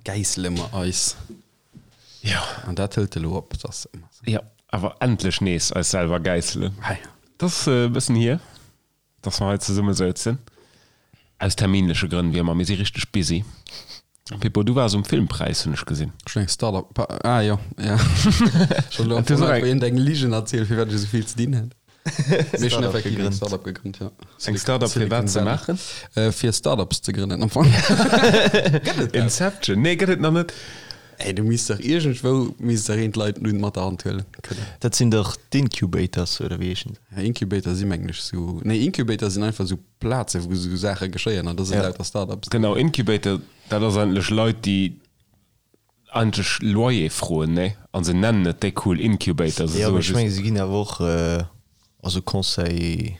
Gäissele mer eis. Jo. An dat hëlt elo op, dat ass ëmmer sou. Jo, awer endlech nees eis selwer gäisselen. Hei. Dat ass e bëssen hier, dass mer hei zesumme souzen. Aus terminleche Grënn, wéi ëmmer. Mir si richteg busy. Pippo, du waars um Filmpräis, hunn ech gesinn. Ech hunn eng Startup, ah jo, ja. Ech hunn elo am Fong einfach iergendeng Ligen erzielt, firwat ech esou vill ze dinn hätt. Mee ech hunn effektiv eng Startup gegrënnt, jo. Eng Startup fir wat ze maachen? Fir Startups ze grënnen am Fong. Gëtt et dat? Inception? Nee, gëtt et nach net. Ey, du misst dach iergendwou misst dach een d'Leit nun mat der Hand huelen kënnen. Dat sinn dach d'Incubators, oder wéi heeschen se? Ja, Incubator si mengen ech sou, nee, Incubator sinn einfach sou Plaze wou sou Saache geschéien an da sinn lauter Startups. Genau, Incubator, dat ass eigentlech Leit, déi eigentlech Loyer froen, nee? An se nennen et déi cool Incubator. Se Jo, soe mee ech just. mengen, se ginn awer och, also Conseil,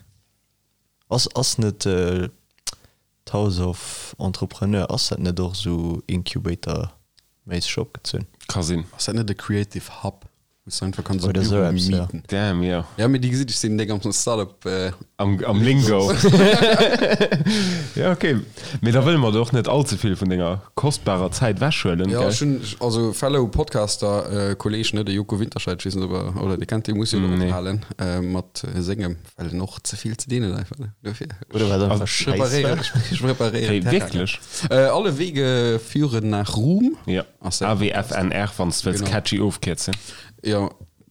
ass, ass net D'House of Entrepreneur, ass dat net och esou Incubator-méisseg opgezunn? Ka sinn. Ass dat net e Creative Hub, wou s de einfach kanns e Oder esou Büro eppes, jo. mieten? Damn, jo. Ja, mee déi gesitt, ech sinn déck am Startup. Am, am Lingo. Ja, ok. Mee da wëlle mer der och net all ze vill vun denger kostbarer Zäit wechhuelen, Jo, gell? ech hunn, also fellow Podcaster, Kolleg, ne, de Joko Winterscheidt, ech weess net, ob er, oder dir kennt dee, muss jo elo Nee. ophalen mat sengem. Well en och ze vill ze dinn huet einfach, ne? Dofir. Oder wat einfach Scheiss war. Ech preparéieren Hey, Terrain. wierklech? Äh, alle Wege führen nach Ruhm. Ja. Ass dat- AWFNR, wann s de wëlls Genau. catchy ofkierzen. Ja,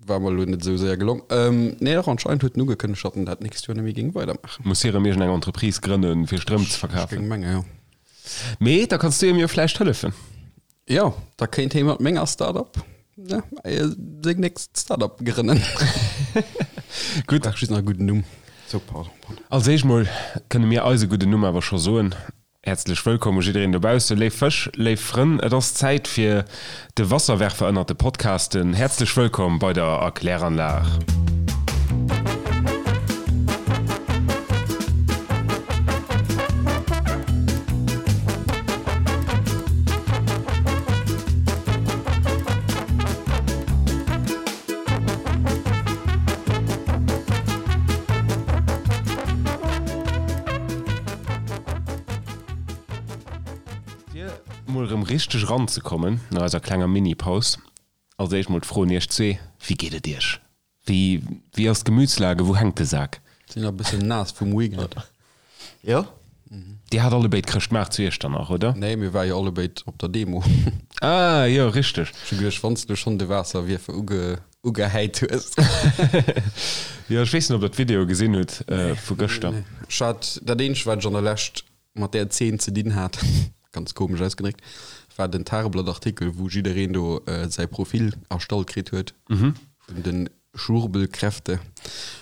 war mer elo net esou séier gelong. Ähm, nee, dach, anscheinend huet en ugekënnegt, datt en dat nächst Joer net méi géing weidermaachen. Muss hie rëm iergendeng Entreprise grënnen, fir Stroum ze Ech verkafen. géing mengen, jo. Mee da kanns du him jo vläicht hëllefen. Jo, da kéint hee mat menger Startup ne, seng nächst Startup grënnen. Gutt. Brauch just nach e gudden Numm. So, pardon, pardon. Als éischt mol kënne mir eise gudden Numm awer scho soen. Häerzlech wëllkomm u jiddereen dobausse, léif Fësch, léif Frënn. Et ass Zäit fir de Wasserwerfer ënnert de Podcasten. Häerzlech wëllkomm bei der Erkläranlag. Fir mol erëm richteg eranzekommen no eiser klenger Mini-Paus, als éischt mol d'Fro un iech zwee, Wéi geet et iech? Wéi, wéi ass d'Gemütslage? Wou hänkt de Sak? Sinn nach e bëssen naass vum Weekend. Jo. Dir hat allebéid Chrëschtmaart zu Iechternach, oder? Nee, mir ware jo allebéid op der Demo. Ah, jo, richteg. Ech hu geduecht, wann s du schonn de Waasserwierfer uge, ugehäit hues. Jo, ech weess net, ob der d'Video gesinn hutt vu gëschter. Nee. Ech hat, dat eenzegt, wat ech an der Lescht mat där Zeen ze dinn hat, ganz komesch ausgedréckt, war den Tageblatt-Artikel, wou jiddereen do säi Profil erstallt kritt huet vun de Schwurbelkräfte.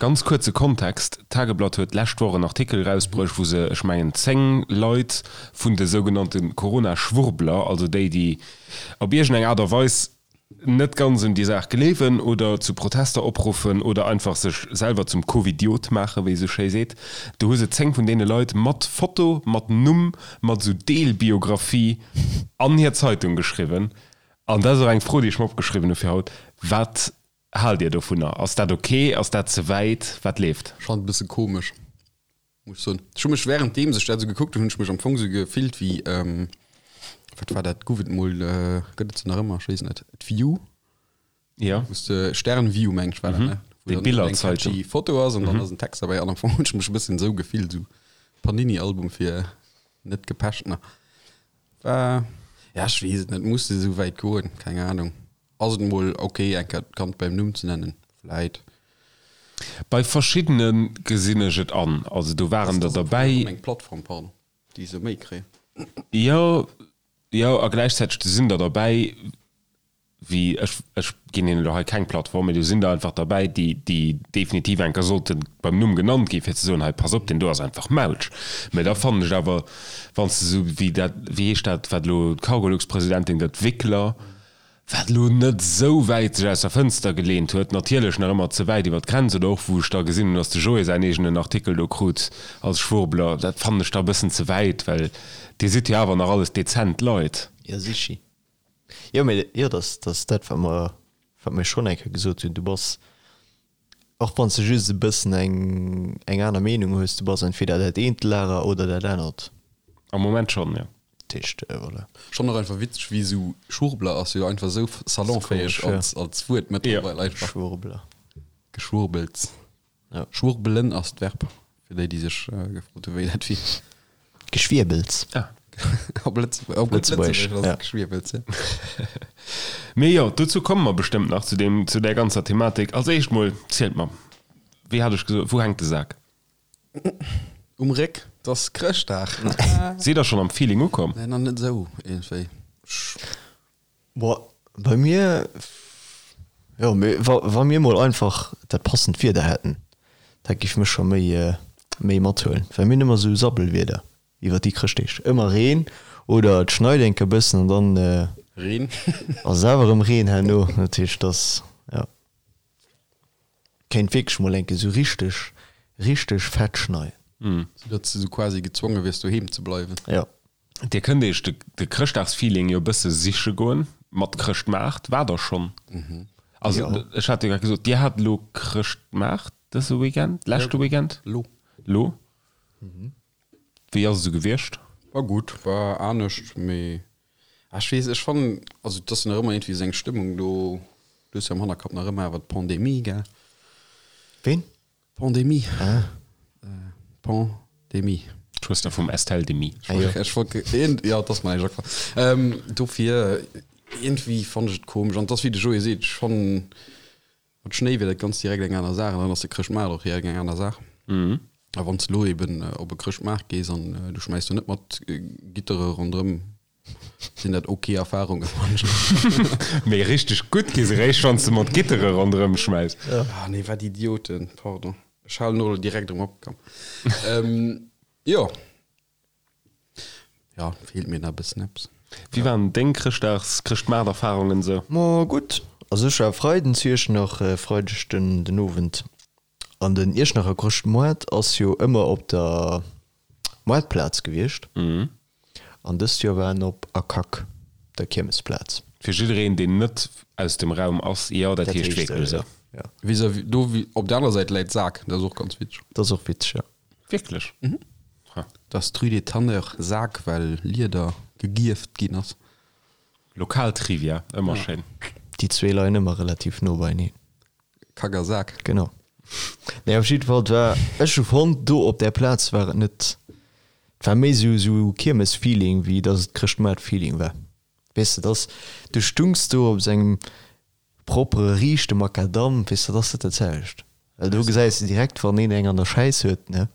Ganz kuerze Kontext, D'Tageblatt huet d'lescht Woch en Artikel erausbruecht, wou se, ech mengen, 10 Leit vun de sougenannte Corona-Schwurbler, also déi, déi op iergendeng Aart a Weis net ganz un déi Saach gleewen oder zu Protester opruffen oder einfach sech selwer zum Covidiot maachen, wéi ee sou schéi seet. Do hu se 10 vun deene Leit mat Foto, mat Numm, mat esou Deelbiographie an hir Zeitung geschriwwen. An dat ass och eng Fro, déi ech mer opgeschriwwen hu fir haut, Wat haalt Dir dovunner? Ass dat ok? Ass dat ze wäit? Wat leeft? Ech fannen et e bësse komesch. Muss ech soen. Ech hu mech währenddeems ech dat esou gekuckt hunn, hunn ech mech am Fong esou gefillt wéi, wat war dat, gouf et mol, gëtt et se nach ëmmer, ech weess net, d'View? Jo. Wou s de, Stern-View meng ech war dat, ne? Déi Wou dann eng Billerzeitung. catchy Foto ass an dann ass en Text derbäi an am Fong hunn ech mech e bëssen esou gefillt, esou Panini-Album fir net Gepeschtener. War, ja ech weess et net, muss de esou wäit goen? Keng Ahnung. Ass et mol ok eng Kéier d'Kand beim Numm ze nennen? Vläit. Bei verschiddene gesinn ech et an. Also do waren der derbäi. Eng Plattform, pardon, déi se méi kréien. Jo, jo, a gläichzäiteg do sinn der derbäi, wéi, ech, ech ginn hinnen elo hei keng Plattform, mee do sinn der einfach derbäi, déi, déi definitiv eng Kéier sollte beim Numm genannt ginn, fir ze soen, hei, pass op, deen do ass einfach mautsch. Mä da fannen ech awer, wann s de esou wéi dat, wéi heescht dat, wat elo d'Cargolux-Presidentin gëtt, Wickler, wat elo net esou wäit sech aus der Fënster geleent huet, natierlech nach ëmmer ze wäit iwwer d'Grenz, oder och wou ech da gesinn hunn, datt de Joé säin eegenen Artikel do krut als Schwurbler, dat fannen ech da e bëssen ze wäit, well Dir sidd jo awer nach alles dezent Leit. Jo, sichi. Jo, mee jo, dat ass dat, wat mer, wat mir schonn eng Kéier gesot hunn, Du bass, och wann s de just e bëssen eng, eng aner Meenung hues, du bass entweder dat eent Lager oder dat anert. Am Moment schonn, jo. Dat heescht, voilà. Schonn och einfach witzeg, wéi esou Schwurbler ass jo einfach esou salonfäeg als, als Wuert mëttlerweil einfach. Schwurbler. Geschwurbels. Ja. Schwurbelen ass d'Verb, fir déi, déi sech gefrot hu wéi dat wier. Geschwierbels. Ah. Op Lëtzebuerg, op gutt Lëtzebuergesch, Lëtzebuergesch ass ja. et Geschwierbels, ja. Mee jo, dozou komme mer bestëmmt nach, zu deem, zu där ganzer Thematik. Als éischt mol, zielt mer, wéi hat ech gesot, wou hänkt de Sak? Um Réck, 't ass Chrëschtdag. Sidd der schonn am Feeling ukomm? Nee, nach net esou, iergendwéi. Boah, bei mir, jo, mee wa, wa mir mol einfach dat passend Wieder hätten, dat géif mech scho méi, méi mathuelen, well mir hunn ëmmer esou Sabbelwieder iwwer déi Chrëschtdeeg. Ëmmer Reen oder et schneit enke bëssen an dann Reen. ass et awer erëm Reen herno. Dat heescht, dass, jo, kéint wierklech mol enke sou richteg, richteg fett schneien. Sou datt s de sou quasi gezwonge wiers doheem ze bleiwen. Jo. Dir kënnt iech de de Chrëschtdagsfeeling jo e bësse siche goen mat Chrëschtmaart. War der schonn? Also Jo. ech hat jo grad gesot, Dir hat elo Chrëschtmaart dëse Weekend, leschte Weekend? Lo. Lo? Wéi ass et esou gewiescht? War gutt, war anescht, mee ech weess, ech fannen, also et ass jo nach ëmmer iergendwéi esou eng Stëmmung do, du hues jo am Hannerkapp nach ëmmer awer d'Pandemie, gell? Ween? Pandemie. Ah. Pandemie. D'Schwëster vum Estelle Demy. Ah, jo. Ech wollt, ja, et ass mer näischt agefall. Ähm, dofir, iergendwéi fannen ech et komesch. An et ass wéi de Joé seet, ech fannen, mat Schnéi wier dat ganz direkt eng aner Saach an dann ass de Chrëschtmaart och direkt eng aner Saach. A wann s de elo eben op e Chrëschtmaart gees an du schmäiss do net mat Gittere ronderëm, Sinn dat ok Erfahrungen? Mee richteg gutt gi se réischt wann s de mat Gittere ronderëm schmäiss. Ah nee, wat Idioten, pardon. Ech halen och elo direkt erëm op, komm. Jo. Jo, feelt mir nach e bëssen eppes. Wéi waren deng Chrëschtdags-, Chrëschtmaart-Erfahrungen esou? Ma gutt, also ech war Freiden zu Iechternach, Freideg den den Owend. An den Iechternacher Chrëschtmoart ass jo ëmmer op der Moartplaz gewiescht. An dëst Joer war en op Akak, der Kiermesplaz. Fir jiddereen, deen net aus dem Raum ass, jo, dat heescht wierklech esou. Jo. Vis-à-vis, do op der aner Säit läit Saak, dat ass och ganz witzeg. Dat ass och witzeg, jo. Wierklech? Mhm. Ha. Dat ass d'Rue des Tanneurs, Saak, well Lieder gegierft ginn ass. Lokal Trivia, ëmmer schéin. Déi zwee leien ëmmer relativ no beieneen. Kack a Sak. Genau. Nee, op jidde Fall, et war, ech hu fonnt, do op där Plaz war et net, et war méi esou, esou Kiermes-Feeling, wéi dass et Chrëschtmaart-Feeling war. Weess de, dass, du stungs do op esou engem propere, riichte Makadamm, weess de, dat ass net dat selwecht. Well do gesäis de direkt, wann een eng an der Schäiss huet, ne,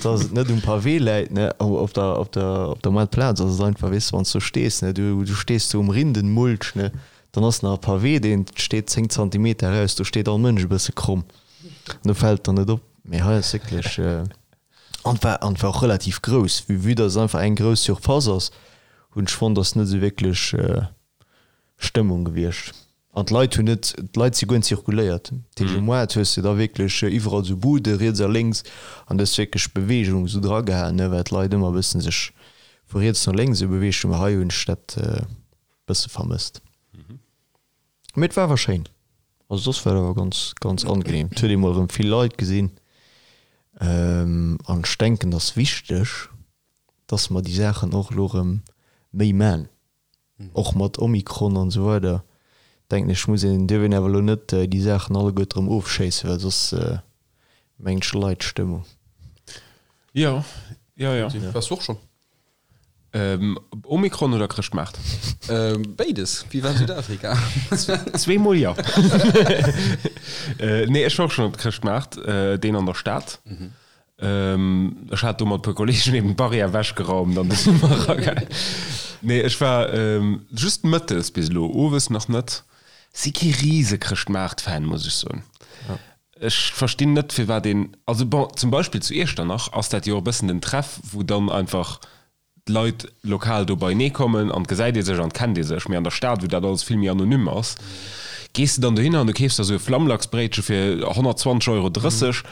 dass et net um Pavé läit, ne, op der, op der, op der Moartplaz ass et einfach, weess de, wann s du stees, ne, du, du stees do um Rindenmulch, ne, dann ass nach e Pavé, deen steet 10 Zantimeter eraus, do steet all Mënsch e bësse kromm an do fält et dann net op. Mee hei ass wierklech, an et war, an et war och relativ grouss, vue, vue dass et einfach eng grouss Surface ass, hunn ech fonnt, ass net esou wierklech Stëmmung gewiescht. An d'Leit hunn net, d'Leit si guer net zirkuléiert. Dat heescht, um Moart hues de da wierklech iwwerall esou Bude riets a lénks an du hues wierklech Beweegung esou dragehalen, ne, well d'Leit ëmmer e bëssen sech vu riets no lénks esou beweegt hunn. Mä hei hunn ech dat e bësse vermësst. Mee et war awer schéin. Also soss war et awer ganz, ganz angenehm. Et huet ee mol erëm vill Leit gesinn. An ech denken, et ass wichteg, dass mer déi Saachen och elo erëm méi man. Och mat Omikron an esou weider denken ech muss een, dierf een awer elo net déi Saachen alleguerte erëm ofschéissen, well soss mengen ech leit d'Stëmmung. Jo, jo, jo. Waars du och schonn? Omikron oder Chrëschtmaart? Béides. Wéi war Südafrika? Zweemol jo. Nee, ech war och schonn op Chrëschtmaart, deen an der Stad. Ech hat do mat e puer Kollegen eben d'Barrière ewechgeraumt an du si mer eragaangen. Nee, ech war just mëttes bis elo, owes nach net. Si kee rise Chrëschtmaart-Fan, muss ech soen. Ech verstinn net, firwat een, also bon, zum Beispill zu Iechternach ass dat jo och e bëssen den Treff, wou dann einfach d'Leit lokal do beienee kommen an 't gesäit ee sech an 't kennt ee sech. Mee an der Stad, wou dat alles vill méi anonym ass, gees de dann dohinner an du keefs der esou e Flammlachsbréitche fir 120 Euro 30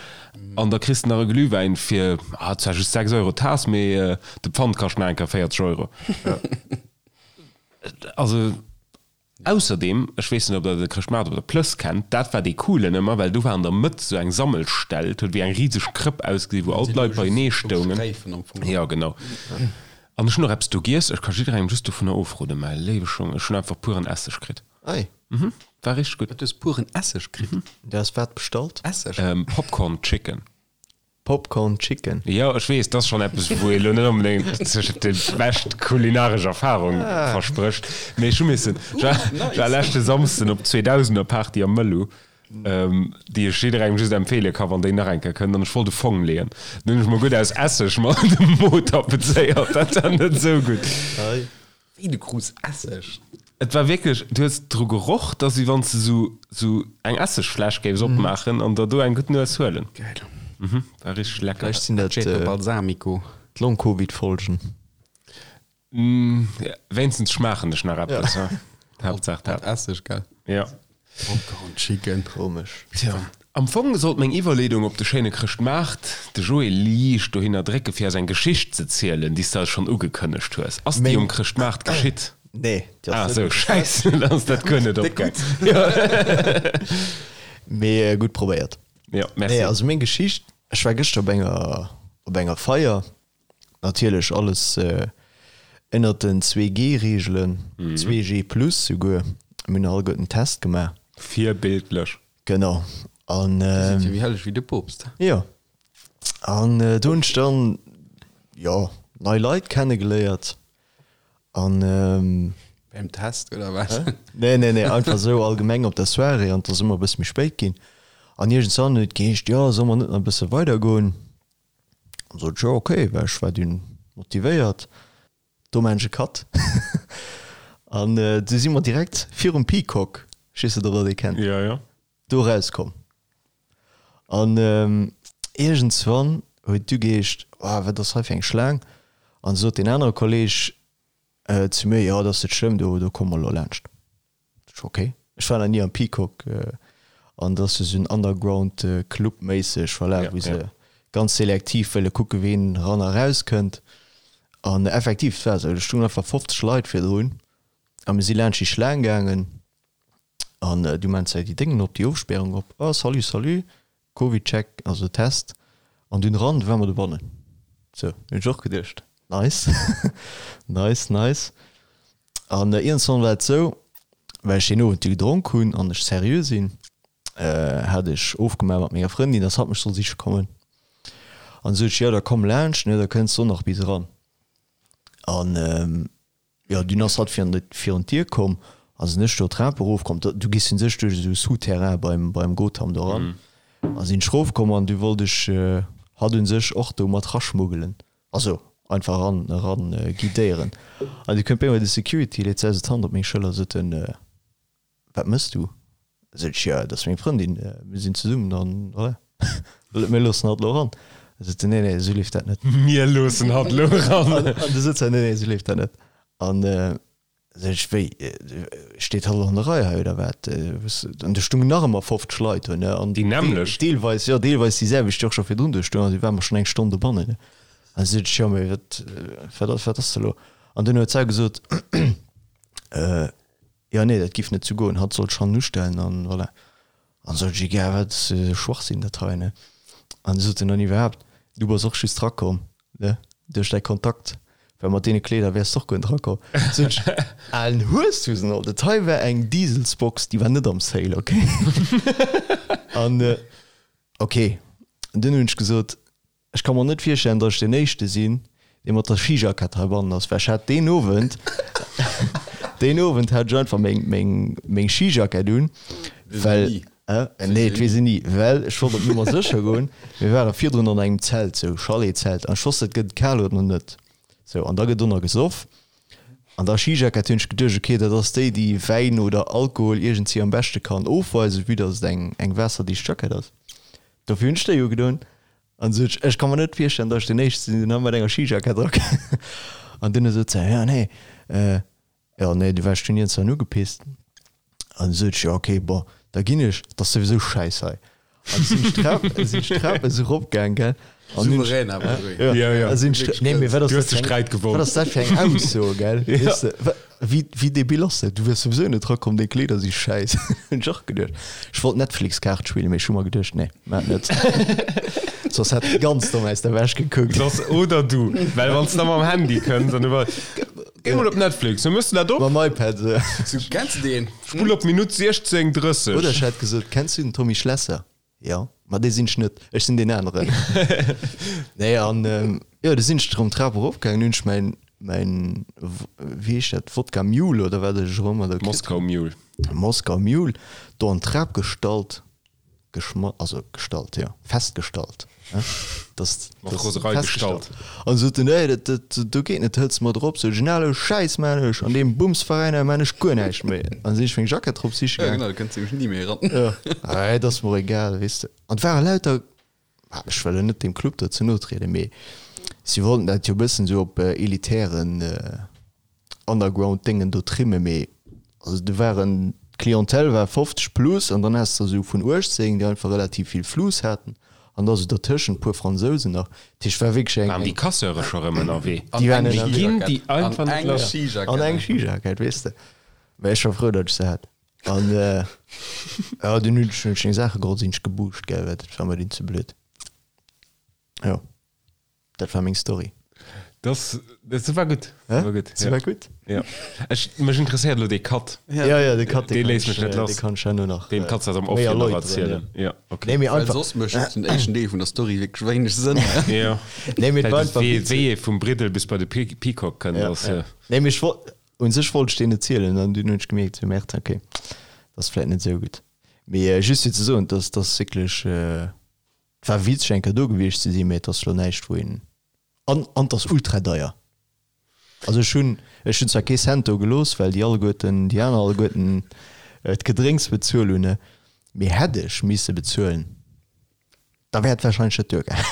an da kriss de nach e Glühwäin fir, ah, zwar just 6 Euro d'Taass, mee de Pfand kascht nach eng Kéier 40 Euro. Also. Ausserdeem, ech weess net ob der de Chrëschtmaart op der Plëss kennt, dat war dee coolen ëmmer, well do war an der Mëtt sou eng Sammelstell, et huet wéi eng riseg Krëpp ausgesinn, wou all d'Leit beienee stoungen. Jo, genau. An ech hunn och eppes do giess, ech ka jidderengem just dovunner ofroden, mäi léiwe Schong, ech hunn einfach puren Esseg kritt. Ei. Mhm, war richteg gutt. Wat, du hues puren Esseg kritt? Du has wat bestallt? Esseg? Popcorn Chicken. Popcorn Chicken. Jo, ech weess, dat ass schonn eppes, wou ee lo net onbedéngt sech déi bescht kulinaresch Erfarung versprécht, mee ech hu missen, ech war, ech war leschte Samsden op d'Zweedausener-Party am Mëllu, déi ech jidderengem just empfeele ka wann déi nach eng Kéier kënnt, an ech wollt e Fong leeën. Dunn hunn ech mer gutt aus Esseg mer de Mo tapezéiert, dat war net esou gutt. Wéi, du krus Esseg? Et war wierklech, du hues dru geroch, dass wéi wann s de sou sou eng Essegfläsch géifs opmaachen an der do eng gutt Nues huelen. Geil. Mhm, war richteg lecker. Vläicht sinn dat Aceto Balsamico. d'Long-Covid-Folgen. Wéinstens schmaachen ech nach eppes, ha? Haaptsaach dat. Mat Esseg, gell? Jo. Popcorn Chicken. Komesch. Tja, am Fong sollt meng Iwwerleedung op de schéine Chrëschtmaart de Joé liicht dohinner drécke fir eis eng Geschicht ze zielen, déi s de eis schonn ugekënnegt hues. Ass déi um Chrëschtmaart geschitt? Nee, déi ass net. Ah sou, schäiss, dann ass dat guer net opgaang. Mee gutt probéiert. Jo, merci. Nee, also meng Geschicht, ech war gëschter op enger, op enger Feier Natierlech alles ënnert den 2G-Reegelen, 2G plus souguer. Mir hunn alleguerten en Test gemaach. Virbildlech. Genau. An. Dir sidd jo méi helleg wéi de Poopst. Jo. An do hunn ech dann, jo, nei Leit kennegeléiert. An. Beim Test oder wat? Nee, nee, nee, einfach esou allgemeng op der Soirée. An et ass ëmmer e bësse méi spéit ginn. An iergendwann huet et geheescht, jo, solle mer net nach e bësse weidergoen? An sot ech, jo ok, well ech war dunn motivéiert. Do maan ech e Cut. An du si mer direkt virum Peacock, ech weess net ob der dee kennt, Jo, jo. do erauskomm. An iergendswann huet du geheescht, oh wat ass hei fir eng Schlaang? An sot deen anere Kolleg zu mir, jo dat ass net schlëmm, do do komme mer elo laanscht. Ok, ech war nach ni am Peacock an dat ass jo sou en Underground Club méisseg, voilà, wou se ganz selektiv wëlle kucke ween ran a raus kënnt. An effektiv, et war esou, do stungen einfach 50 Leit virdrun a mir si laanscht déi Schlaang gaangen an du maan se déi Déngen op, déi Ofspärung op, oh salut, salut, Covid-Check, also Test, an dunn ran, du war mer dobannen. Sou, hunn ech och geduecht, nice, nice, nice. An iergendwann war et sou, well ech deen Owend du gedronk hunn an ech seriö sinn, hat ech ofgemaach mat menger Frëndin, dass hatt mech soll siche kommen. An du sot ech, jo da komm laanscht, ne, da kënns de och nach bis eran. An Jo, dunn ass hatt virun d'Dier komm a sinn ech do d'Trap erofkomm. Du gees un sech duerch esou Souterrain beim, beim Gotham do eran. A sinn ech erofkomm an du wollt ech hatt un sech och do mat raschmuggelen. Also einfach eran, eran guidéieren. An du kënnt bei mir de Security, leet säi sou d'Hand op meng Schëller, sot en, Wat mëss du? Sot ech, jo, dat ass meng Frëndin, mir sinn zesummen an voilà, mir loossen hatt elo eran. Da sot se, nee, nee, esou leeft dat net. Mir loossen hatt elo eran. An du sot se, nee, nee, esou leeft dat net. An sot ech, wéi, steet hatt elo an der Rei hei oder wat? An do stungen nach ëmmer 50 Leit do, ne, an Déi nämmlecht? Deelweis, jo, deelweis déi selwecht, déi och scho virdrun do stoungen, an déi ware mer schonn eng Stonn dobannen, ne. An du sot ech, jo, mee wat, wat ass, wat ass da elo? An dunn huet se gesot, Jo nee, dat giff net sou goen, hatt sollt schonn ustellen an voilà. An sot ech, egal wat, ass jo Schwachsinn dat hei ne. An du sot en dann iwwerhaapt, du bass och just rakomm ne, duerch däi Kontakt, well mat deene Kleeder wäers de och guer net rakomm. Sot ech, alen Hueshusen alt, dat hei war eng Dieselsbox, déi war net am Sale, ok. An ok, dunn hunn ech gesot, Ech ka mer net virstellen, datt ech deen Éischte sinn, dee mat der Skijackett heibannen ass, well ech hat deen Owend, deen Owend hat ech einfach meng, meng, meng Skijackett un, well, nee, et weess een ni, well ech wollt op Nummer sécher goen. Mir ware virdrun an engem Zelt, sou Chalet-Zelt, an ech wosst, et gëtt kal oder net, sou, an da gëtt do nach gesoff. An der Skijackett hunn ech geduecht, okay, dat ass déi, déi Wäin oder Alkohol iergendwéi am beschte kann ofweisen, vue datt et eng, eng waasserdicht Jackett ass. Dofir hunn ech déi ugedoen. An sot ech, ech ka mer net virstellen, datt ech deen Éischte sinn, deen hei mat enger Skijackett erakënnt. An dunn sot se, jo nee, jo nee, du waars dunn iergendwann ugepisst. An du sot ech, jo okay, bon, da ginn ech, et ass souwisou schäiss hei. An du sinn ech d'Trap, sinn ech d'Trap esou eropgaang, gell. An hunn ech, Souverän awer, Joé. jo, Ja, ja. a sinn ech, nee, mee wat ass Du hues dat de fir eng, Sträit wat gewonn. ass dat fir eng Ausso, gell? Ja. Weess de, wa, wéi, wéi debil ass dat? Du wiers souwisou net erakomm, deng Kleeder si schäiss. Hunn ech och geduecht. Ech wollt Netflix-Kaart spillen, mee ech hu mer geduecht, nee, maach net. soss hätt e ganz domm aus der Wäsch gekuckt. Soss oder du, well wann s de da mam Handy kënns an du war, Géi mol op Netflix, wou mëss de dat op? Mam iPad, esou. Sou, kenns de deen? Spull op Minutt 16,30. Oder ech hätt gesot, Kenns du den Tommy Schlesser? Jo, ma dee sinn ech net, ech sinn deen aneren. Nee, an jo, du sinn ech erëm d'Trap erofgaangen, hunn ech mäin, mäin, wéi heescht dat, Wodka Mule oder wat ech erëm ëmmer do kritt Moskau Mule. Moskau Mule, do an d'Trap gestallt. Geschma also gestallt, jo, festgestallt, ne, dass, Mat dass Roserei festgestallt. gestallt. An sot en, nee, dat, dat, do geet net, hëls mat erop. Sot ech, elo Schäiss maan ech, an deem Bumsveräin hei maan ech guer näischt méi. An sinn ech meng Jackett drop siche Ja, gaang. genau, do kënns de nämlech ni méi eran. Jo, ah, et ass mer och egal, weess de. An et ware lauter, ah, ech wëll elo net deem Club do ze no trieden, mee si wollten dat jo e bëssen esou op elitären, Underground-Déngen do trimmen, mee also do waren, d'Clientèle war 50 plus an dann has de esou vun 18, déi einfach relativ vill Fluss haten an da sou dertëschent puer Fransousen nach. Dat heescht, war wierklech eng. Waren déi Casseure scho rëm ënnerwee? Déi waren Déi ënnerwee. ginn déi einfach net lass. An eng Skijackett, weess de. Mä ech war frou, datt ech se hat. An jo, dunn hunn ech hunn ech meng Saache geholl, sinn ech gebuuscht, gell, well dat war mer dunn ze blöd. Jo. Dat war meng Story. Das, das war gutt. Hä? War gutt. Se war gutt? Ja. Ech, mech interesséiert elo dee Cut. Ja, ja, de Cut, Dee léisst mech net lass. Dee kann ech herno nach Deen kanns du eis am Off méi jo nach erläuteren, erzielen. ja. Ja, okay. Nee, mee Well einfach, soss mécht den éischten Deel vun der Story wierklech wéineg Sënn. Ja. nee, mee et war Well einfach wéi, witzeg. wéi ee vum Briddel bis bei de Pe Peacock kënnt, Ja, ass. ja. Nee, mee ech wollt, un sech wollt ech deen erzielen an dunn hunn ech gemierkt, sou, Merde, okay, dat ass vläit net esou gutt. Mee just fir ze soen, dass dass wierklech, Et war witzeg eng Kéier do gewiescht ze sinn, mee et ass lo näischt wou een, an an et ass ultra deier. Also ech hunn ech hunn zwar kee Cent do gelooss, well déi alleguerten déi aner alleguerten d'Gedrénks bezuel hunn, mee hätt ech misse bezuelen, da wär et wahrscheinlech net duergaangen.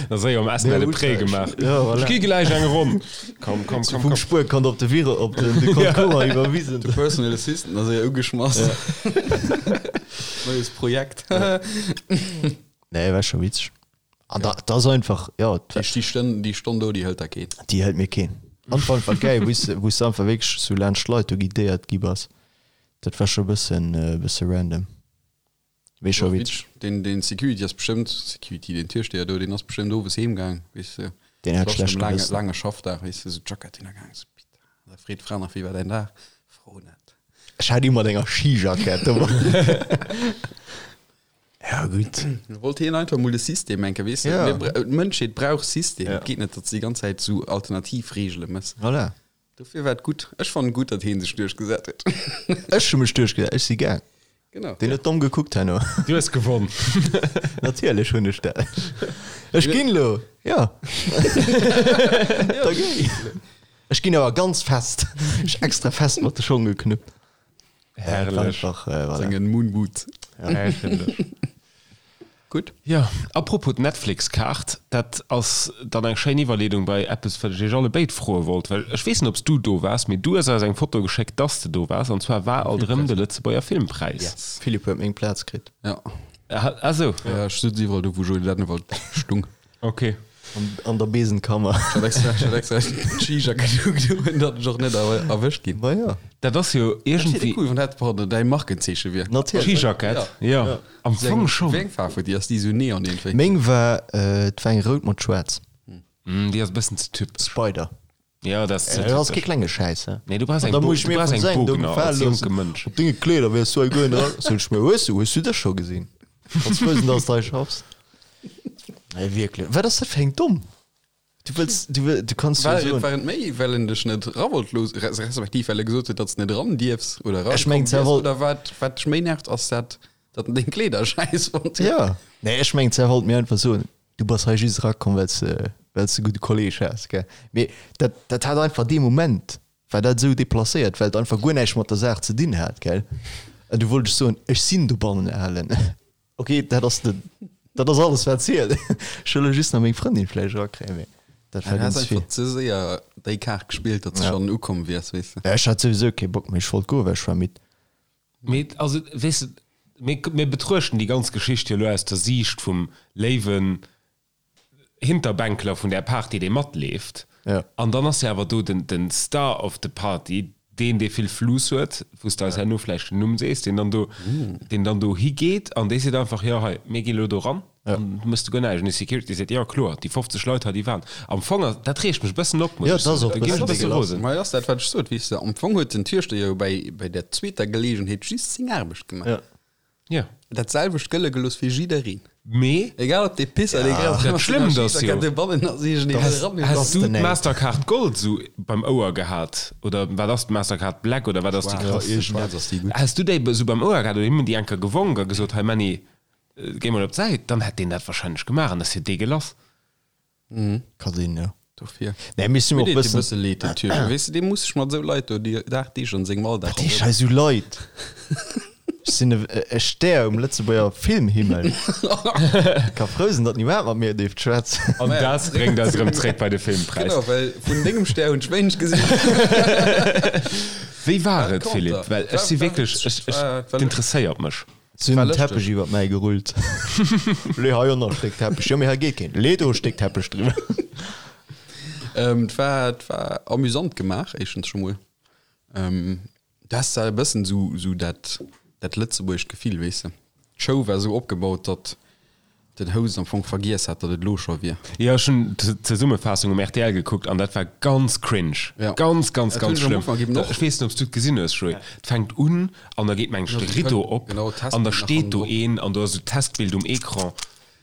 Da séier um Essen de Prêt gemaach. Ja, voilà. Ech gi gläich eng Ronn. Komm, komm, komm, Vum komm. Spuerkont op de Viro op den de Compte courant iwwerwisen. De Personal Assistant ass séier ugeschmass. Neues Projekt. Nee, war scho witzeg. An da, dat ass einfach, ja, Déi déi Stonn, déi Stonn do, déi hëlt der keen. déi hëlt mir keen. An war einfach geil, wou s wou s de einfach wierklech sou laanscht d'Leit do guidéiert gi bass. Dat war scho e bëssen, e bësse random. Mee scho witzeg. Deen, deen Security ass bestëmmt, Security, deen Türsteher do, deen ass bestëmmt owes heem gaang, weess de. Deen hat Das war schlecht schon lange, Gewëssen. lange Schaffdag, weess de, sou Jackett hinnergaang, sou Pita. Da freet d'Fra nach, wéi war däin Dag? Fro net. Ech hat ëmmer enger Skijackett dobei. Ja gutt. Wollt hien einfach mol de System enke, weess de. Ja. Mir bra- D'Mënschheet brauch System. Ja. Et geet net, datt se déi ganz Zäit sou alternativ Reegele mëss. Voilà. Dofir war et gutt. Ech fannen gutt, datt hien sech duerchgesat huet. Ech hu mech duerchgesat, ech si gaang. Genau. Deen huet domm gekuckt herno. Du hues gewonn. Natierlech hunn ech dat. Ech ginn elo, jo. Da géi. Ech ginn awer ganz fest. Ech extra fest mat de Schong geknuppt. Herrlech. Einfach, äh, voilà. Sengen Moonboot. Herrlech. Gutt. Jo, apropos d'Netflix-Kaart, dat ass dann eng schéin Iwwerleedung bei eppes, wat ech iech alle béid froe wollt, well ech weess net, ob s du do waars, mee du hues eis eng Foto geschéckt, dass de do waars, an zwar war alt erëm de Lëtzebuerger Filmpräis. Yes. Philippe huet meng Plaz kritt. Ja. Ah sou. Ja, ech sutz iwwerall do, wou Joé Dennewald stung. Ok. An, an der Besenkammer. Ech hat extra, ech hat extra d'Skijackett ugedoen, datt ech och net erwëscht ginn. Ma jo. Dat ass jo Dat wier iergendwéi. cool, wann dat pardon, däi Markenzeeche wier. Natierlech. Skijackett, jo. Am Fong schonn. Wéi eng Faarf huet déi? Ass déi esou neon iergendwéi? Meng war, et war eng rout mat schwaarz. Déi ass e bëssen ze typesch. Spider. Jo, dat ass ze Dat ass kee typesch. klenge Schäiss, he? Nee, du brauchs An eng da Bo muss ech du mir brauchs vun eng sengem do Bogner gefale als loossen. jonke Mënsch. Op denge Kleeder wäers du hei guer net eran. Sot ech mir, hues du, hues du dech scho gesinn? Kanns frou sinn, dass du hei schaffs. Nee, wierklech. Wat ass dat fir eng domm? Du wëlls, du wëll, du kanns jo War, soen. war et méi, well en dech net era wollt loossen, res- respektiv well e gesot huet, datt s de net eran dierfs oder Ech mengen, erakomm zwar wiers, wollt- oder wat, wat dech méi nervt, ass dat, datt en deng Kleeder schäiss fonnt huet? Ja. Nee, ech mengen, zwar wollt mir einfach soen, du bass hei just erakomm, well s de, well s de gudde Kolleg has, gell. Mee dat, dat hat einfach dee Moment, war dat esou deplacéiert, well et einfach guer näischt mat der Saach ze dinn hat, gell. An du wollt ech soen, ech sinn dobannen alen. Ok, dat ass de, dat ass alles wat zielt. Ech wëll elo just nach meng Frëndin vläicht erakréien, mee dat war Du has ganz vill. einfach ze séier déi Kaart gespillt, datt s Ja. schonn ukomm wiers, weess de. Ja, ech hat souwisou kee Bock méi, ech wollt goen, well ech war midd. Mee also, weess de, mir, mir betruechten déi ganz Geschicht jo elo aus der Siicht vum léiwen Hinterbänkler vun där Party, dee matleeft. Ja. An dann ass jo awer do den, den Star of the Party, deen, dee vill Fluss huet, wou s de eis herno vläicht den Numm sees, deen dann do, deen dann do higeet an dee seet einfach, jo hei, mir gi lo do ran. An du mëss du guer näischt. An de Security seet, jo kloer, déi 50 Leit hei, déi waren. Am Fong ass, dat reegt mech e bëssen op, muss Jo, ech et ass soen. och Da e ginn ech e bëssen bësse dégueulasse. rosen. Ma et ass dat, wat ech sot, weess de. Am Fong huet den Türsteher jo bäi, bäi der zweeter Geleegenheet just seng Aarbecht gemaach. Ja. Ja. Dat selwecht gëlle gelooss fir jiddereen. Mee. Egal ob dee Pisser, dee Ja. Dat Schlëmmt ass jo. Has Has du d'Mastercard Gold sou beim Ouer gehat? Oder wat ass d'Mastercard Black oder wat ass déi krass? Schwaarz ass déi gutt. Has du déi sou beim Ouer gehat oder him déi eng Kéier gewonk a gesot, hei Männi, Géi mol op d'Säit, dann hätt deen dat wahrscheinlech gemaach an ass jo deegelass. Ka sinn, jo. Dofir. Nee, mir sinn Mir och deet e bëssen. bësse leed, den Typ. Weess de, dee muss sech mat esou Leit do déi dagdeeglech an sengem Alldag Wat heescht hei esou Leit? Ech sinn e Stär um Lëtzebuerger Filmhimmel. Ka frou sinn, datt niemand mat mir dierft schwätzen. An dat bréngt eis erëm zréck bei de Filmpräis. Genau, well vun dengem Stär hunn ech wéineg gesinn. Wéi war et, Philippe? Well ech si wierklech, ech, ech, et interesséiert mech. Si hunn en Teppech iwwert mäi gerullt. Lee hei och nach e Stéck Teppech. Jo, mee hei geet keen. Lee do e Stéck Teppech driwwer. Et war, et war amüsant gemaach, éischtens scho mol. Du has da e bëssen esou, esou dat, dat lëtzebuergescht Gefill, weess de. D'Show war esou opgebaut, datt den Host am Fong vergiess hat, datt et elo scho wier. Jo, ech hunn d'Zesummefaassung um rtl gekuckt an dat war ganz cringe. Ja. Ganz, ganz, Dat hunn ganz ech am schlëmm. Ufank eben och. Ech weess net, ob s du et gesinn hues, Joé. Et fänkt un an da geet meng ech de Rideau op Genau, an da Testbild nach steet do hannendrop. een an do ass esou d'Testbild um Ecran.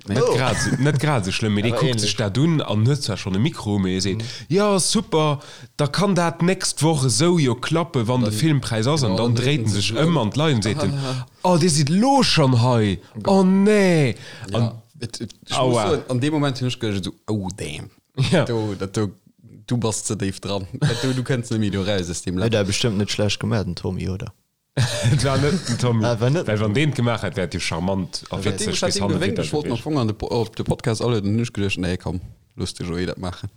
Net Oh. grad esou, net grad esou schlëmm, mee dee Awer kuckt sech ähnlech. dat un an huet zwar schonn e Mikro, mee e seet, Jo, super, da kann dat d'nächst Woch esou jo klappen, wann de Filmpräis ass. An Genau, dann dann dréit en sech ëm an d'Leit an seet en, Oh, dir sidd lo schonn hei, oh nee! Ja, An et, et, ech muss Aua. soen, an deem Moment hunn ech geduecht esou, oh damn, Ja. do, dat do, du bass ze déif dran, dat do, du kënns net méi do raus aus deem Huet Lach. dat bestëmmt net schlecht gemaach, den Tommy, oder? Et war net den Tommy. Ah, war net Well wann deen et gemaach hätt, wär et jo charmant a Ech hat witzeg deem, ech hat bis deem hanne gewénkt, widder ech wollt am gewiescht. Fong an de, op de Podcast alueden, hunn ech geduecht, nee komm, looss de Joé dat maachen.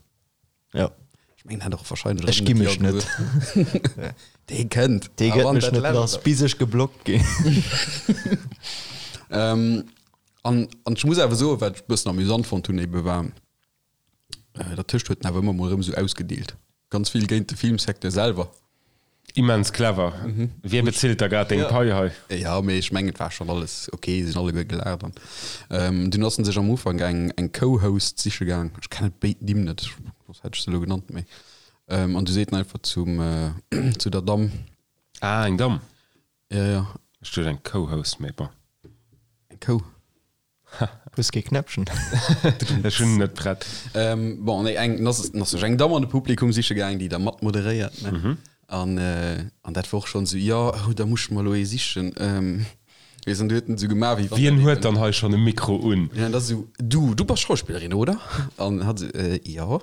Ja. Ech mengen, en hätt och wahrscheinlech Ech erëm gi net mech Jo net. gesot. Dee kënnt. Dee A gëtt wann mech dat net Lescht lass, bis ech geblockt ginn. Ähm, an, an ech muss awer soen, wat ech e bëssen amüsant fonnt hunn ebe war, Dertëscht huet en awer ëmmer mol erëm esou ausgedeelt. Ganz vill géint de Filmsecteur selwer. Immens clever. Wie bezilt da grad deng Pai hei? Jo, mee ech mengen, et war schonn alles ok, se sinn alleguer gelaacht an dunn ass en sech am Ufank eng eng Co-Host siche gaang, ech kennen béid Nimm net, soss hätt ech se elo genannt, mee an du seet en einfach zum zu der Damm. Ah, eng Damm? Jo, jo. Ech duecht eng Co-Host, mee bon. Eng Kou. Hues kee Knäppchen? Ech hunn net prett. Ähm, bon, nee, eng, ass, ass sech eng Damm an de Publikum siche gaang, déi da mat moderéiert, ne? Mhm. An, äh, an dat war och schonn esou, jo, oh, da muss ech mer elo ee sichen. Ähm, weess, an du huet en esou gemaach, wéi wann Wien dat huet eben- dann hei schonn e Mikro un? Ja, an da esou, du, du bass Schauspillerin, oder? An hat esou, äh, jo.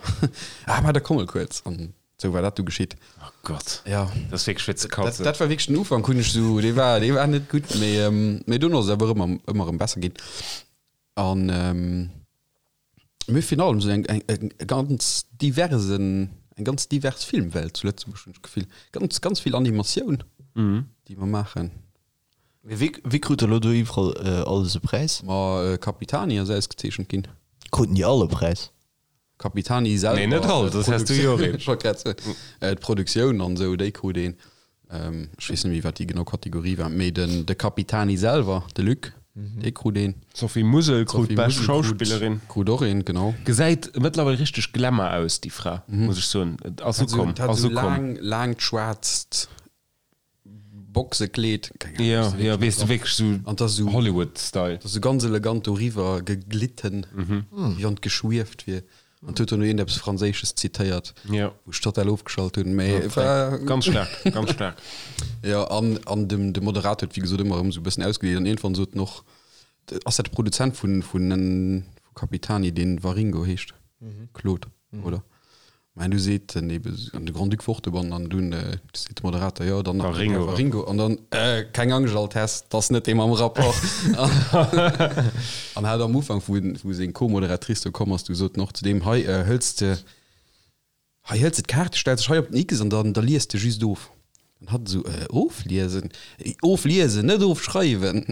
Ah, ma da komm mol kuerz. An esou war dat du geschitt. Oh Gott. Ja. Dat ass wierklech fir ze Dat, katzen. dat war wierklech den Ufank, hunn ech esou, dee war, dee war net gutt, mee, ähm, mee dunn ass et awer ëmmer, ëmmer erëm besser ginn. An, ähm, mee virun allem esou eng, eng, eng ganz diversen, eng ganz divers Filmwelt zu Lëtzebuerg, hunn ech d'Gefill. Ganz, ganz vill Animatioun, déi mer maachen. Mee wie, wie krut elo do iwwerall alles e Präis? Ma Capitani ass ausgezeechent ginn. Kruten déi all e Präis? Capitani selwer. Nee, net all, soss häss du jo och een. Ech wollt grad soen, d'Produktioun an esou, déi krut een. Ech weess net méi, wat déi genau Kategorie war, mee den de Capitani selwer, de Luc, dee krut een. D'Sophie Musel krut D'Sophie bescht Musel krut, Schauspillerin. krut och een, genau. Gesäit mëttlerweil richteg Glamour aus, déi Fra, muss ech soen. Et ass Hat esou, ukomm, hat ass esou ukomm. laang, laangt schwaarzt Boxekleed, keng Ahnung, Ja, weess de ja, wierklech weess de net wierklech sou An 't ass esou, Hollywood-Style. 't ass esou ganz elegant doriwwer geglitten, wéi wann 't geschwieft wier. An 't huet dono iergendeppes Franséisches zitéiert, Ja. wou ech total ofgeschalt hunn, mee et war. Ganz staark, ganz staark. Jo, an, an dem, de Moderator huet wéi gesot ëmmer erëm esou e bëssen ausgedeelt an iergendwann sot en och, ass dat de Produzent vun, vun, vu Capitani, deen Waringo heescht? Claude, oder? Mä du seet den ebe an de Grand-Duc wor dobannen an dunn seet de Moderator, jo dann nach den Här Waringo an dann, äh, keng Angscht Altesse, 't ass net dee mam Rapport. An hat am Ufank, wou wou seng Co-Moderatrice do komm ass, du sot en och zu deem, hei hëls de, hei hëls de d'Kaart, stells dech hei op den X an dann da lies de just of. An hatt esou, äh, ofliesen? Ofliesen, net ofschreiwen!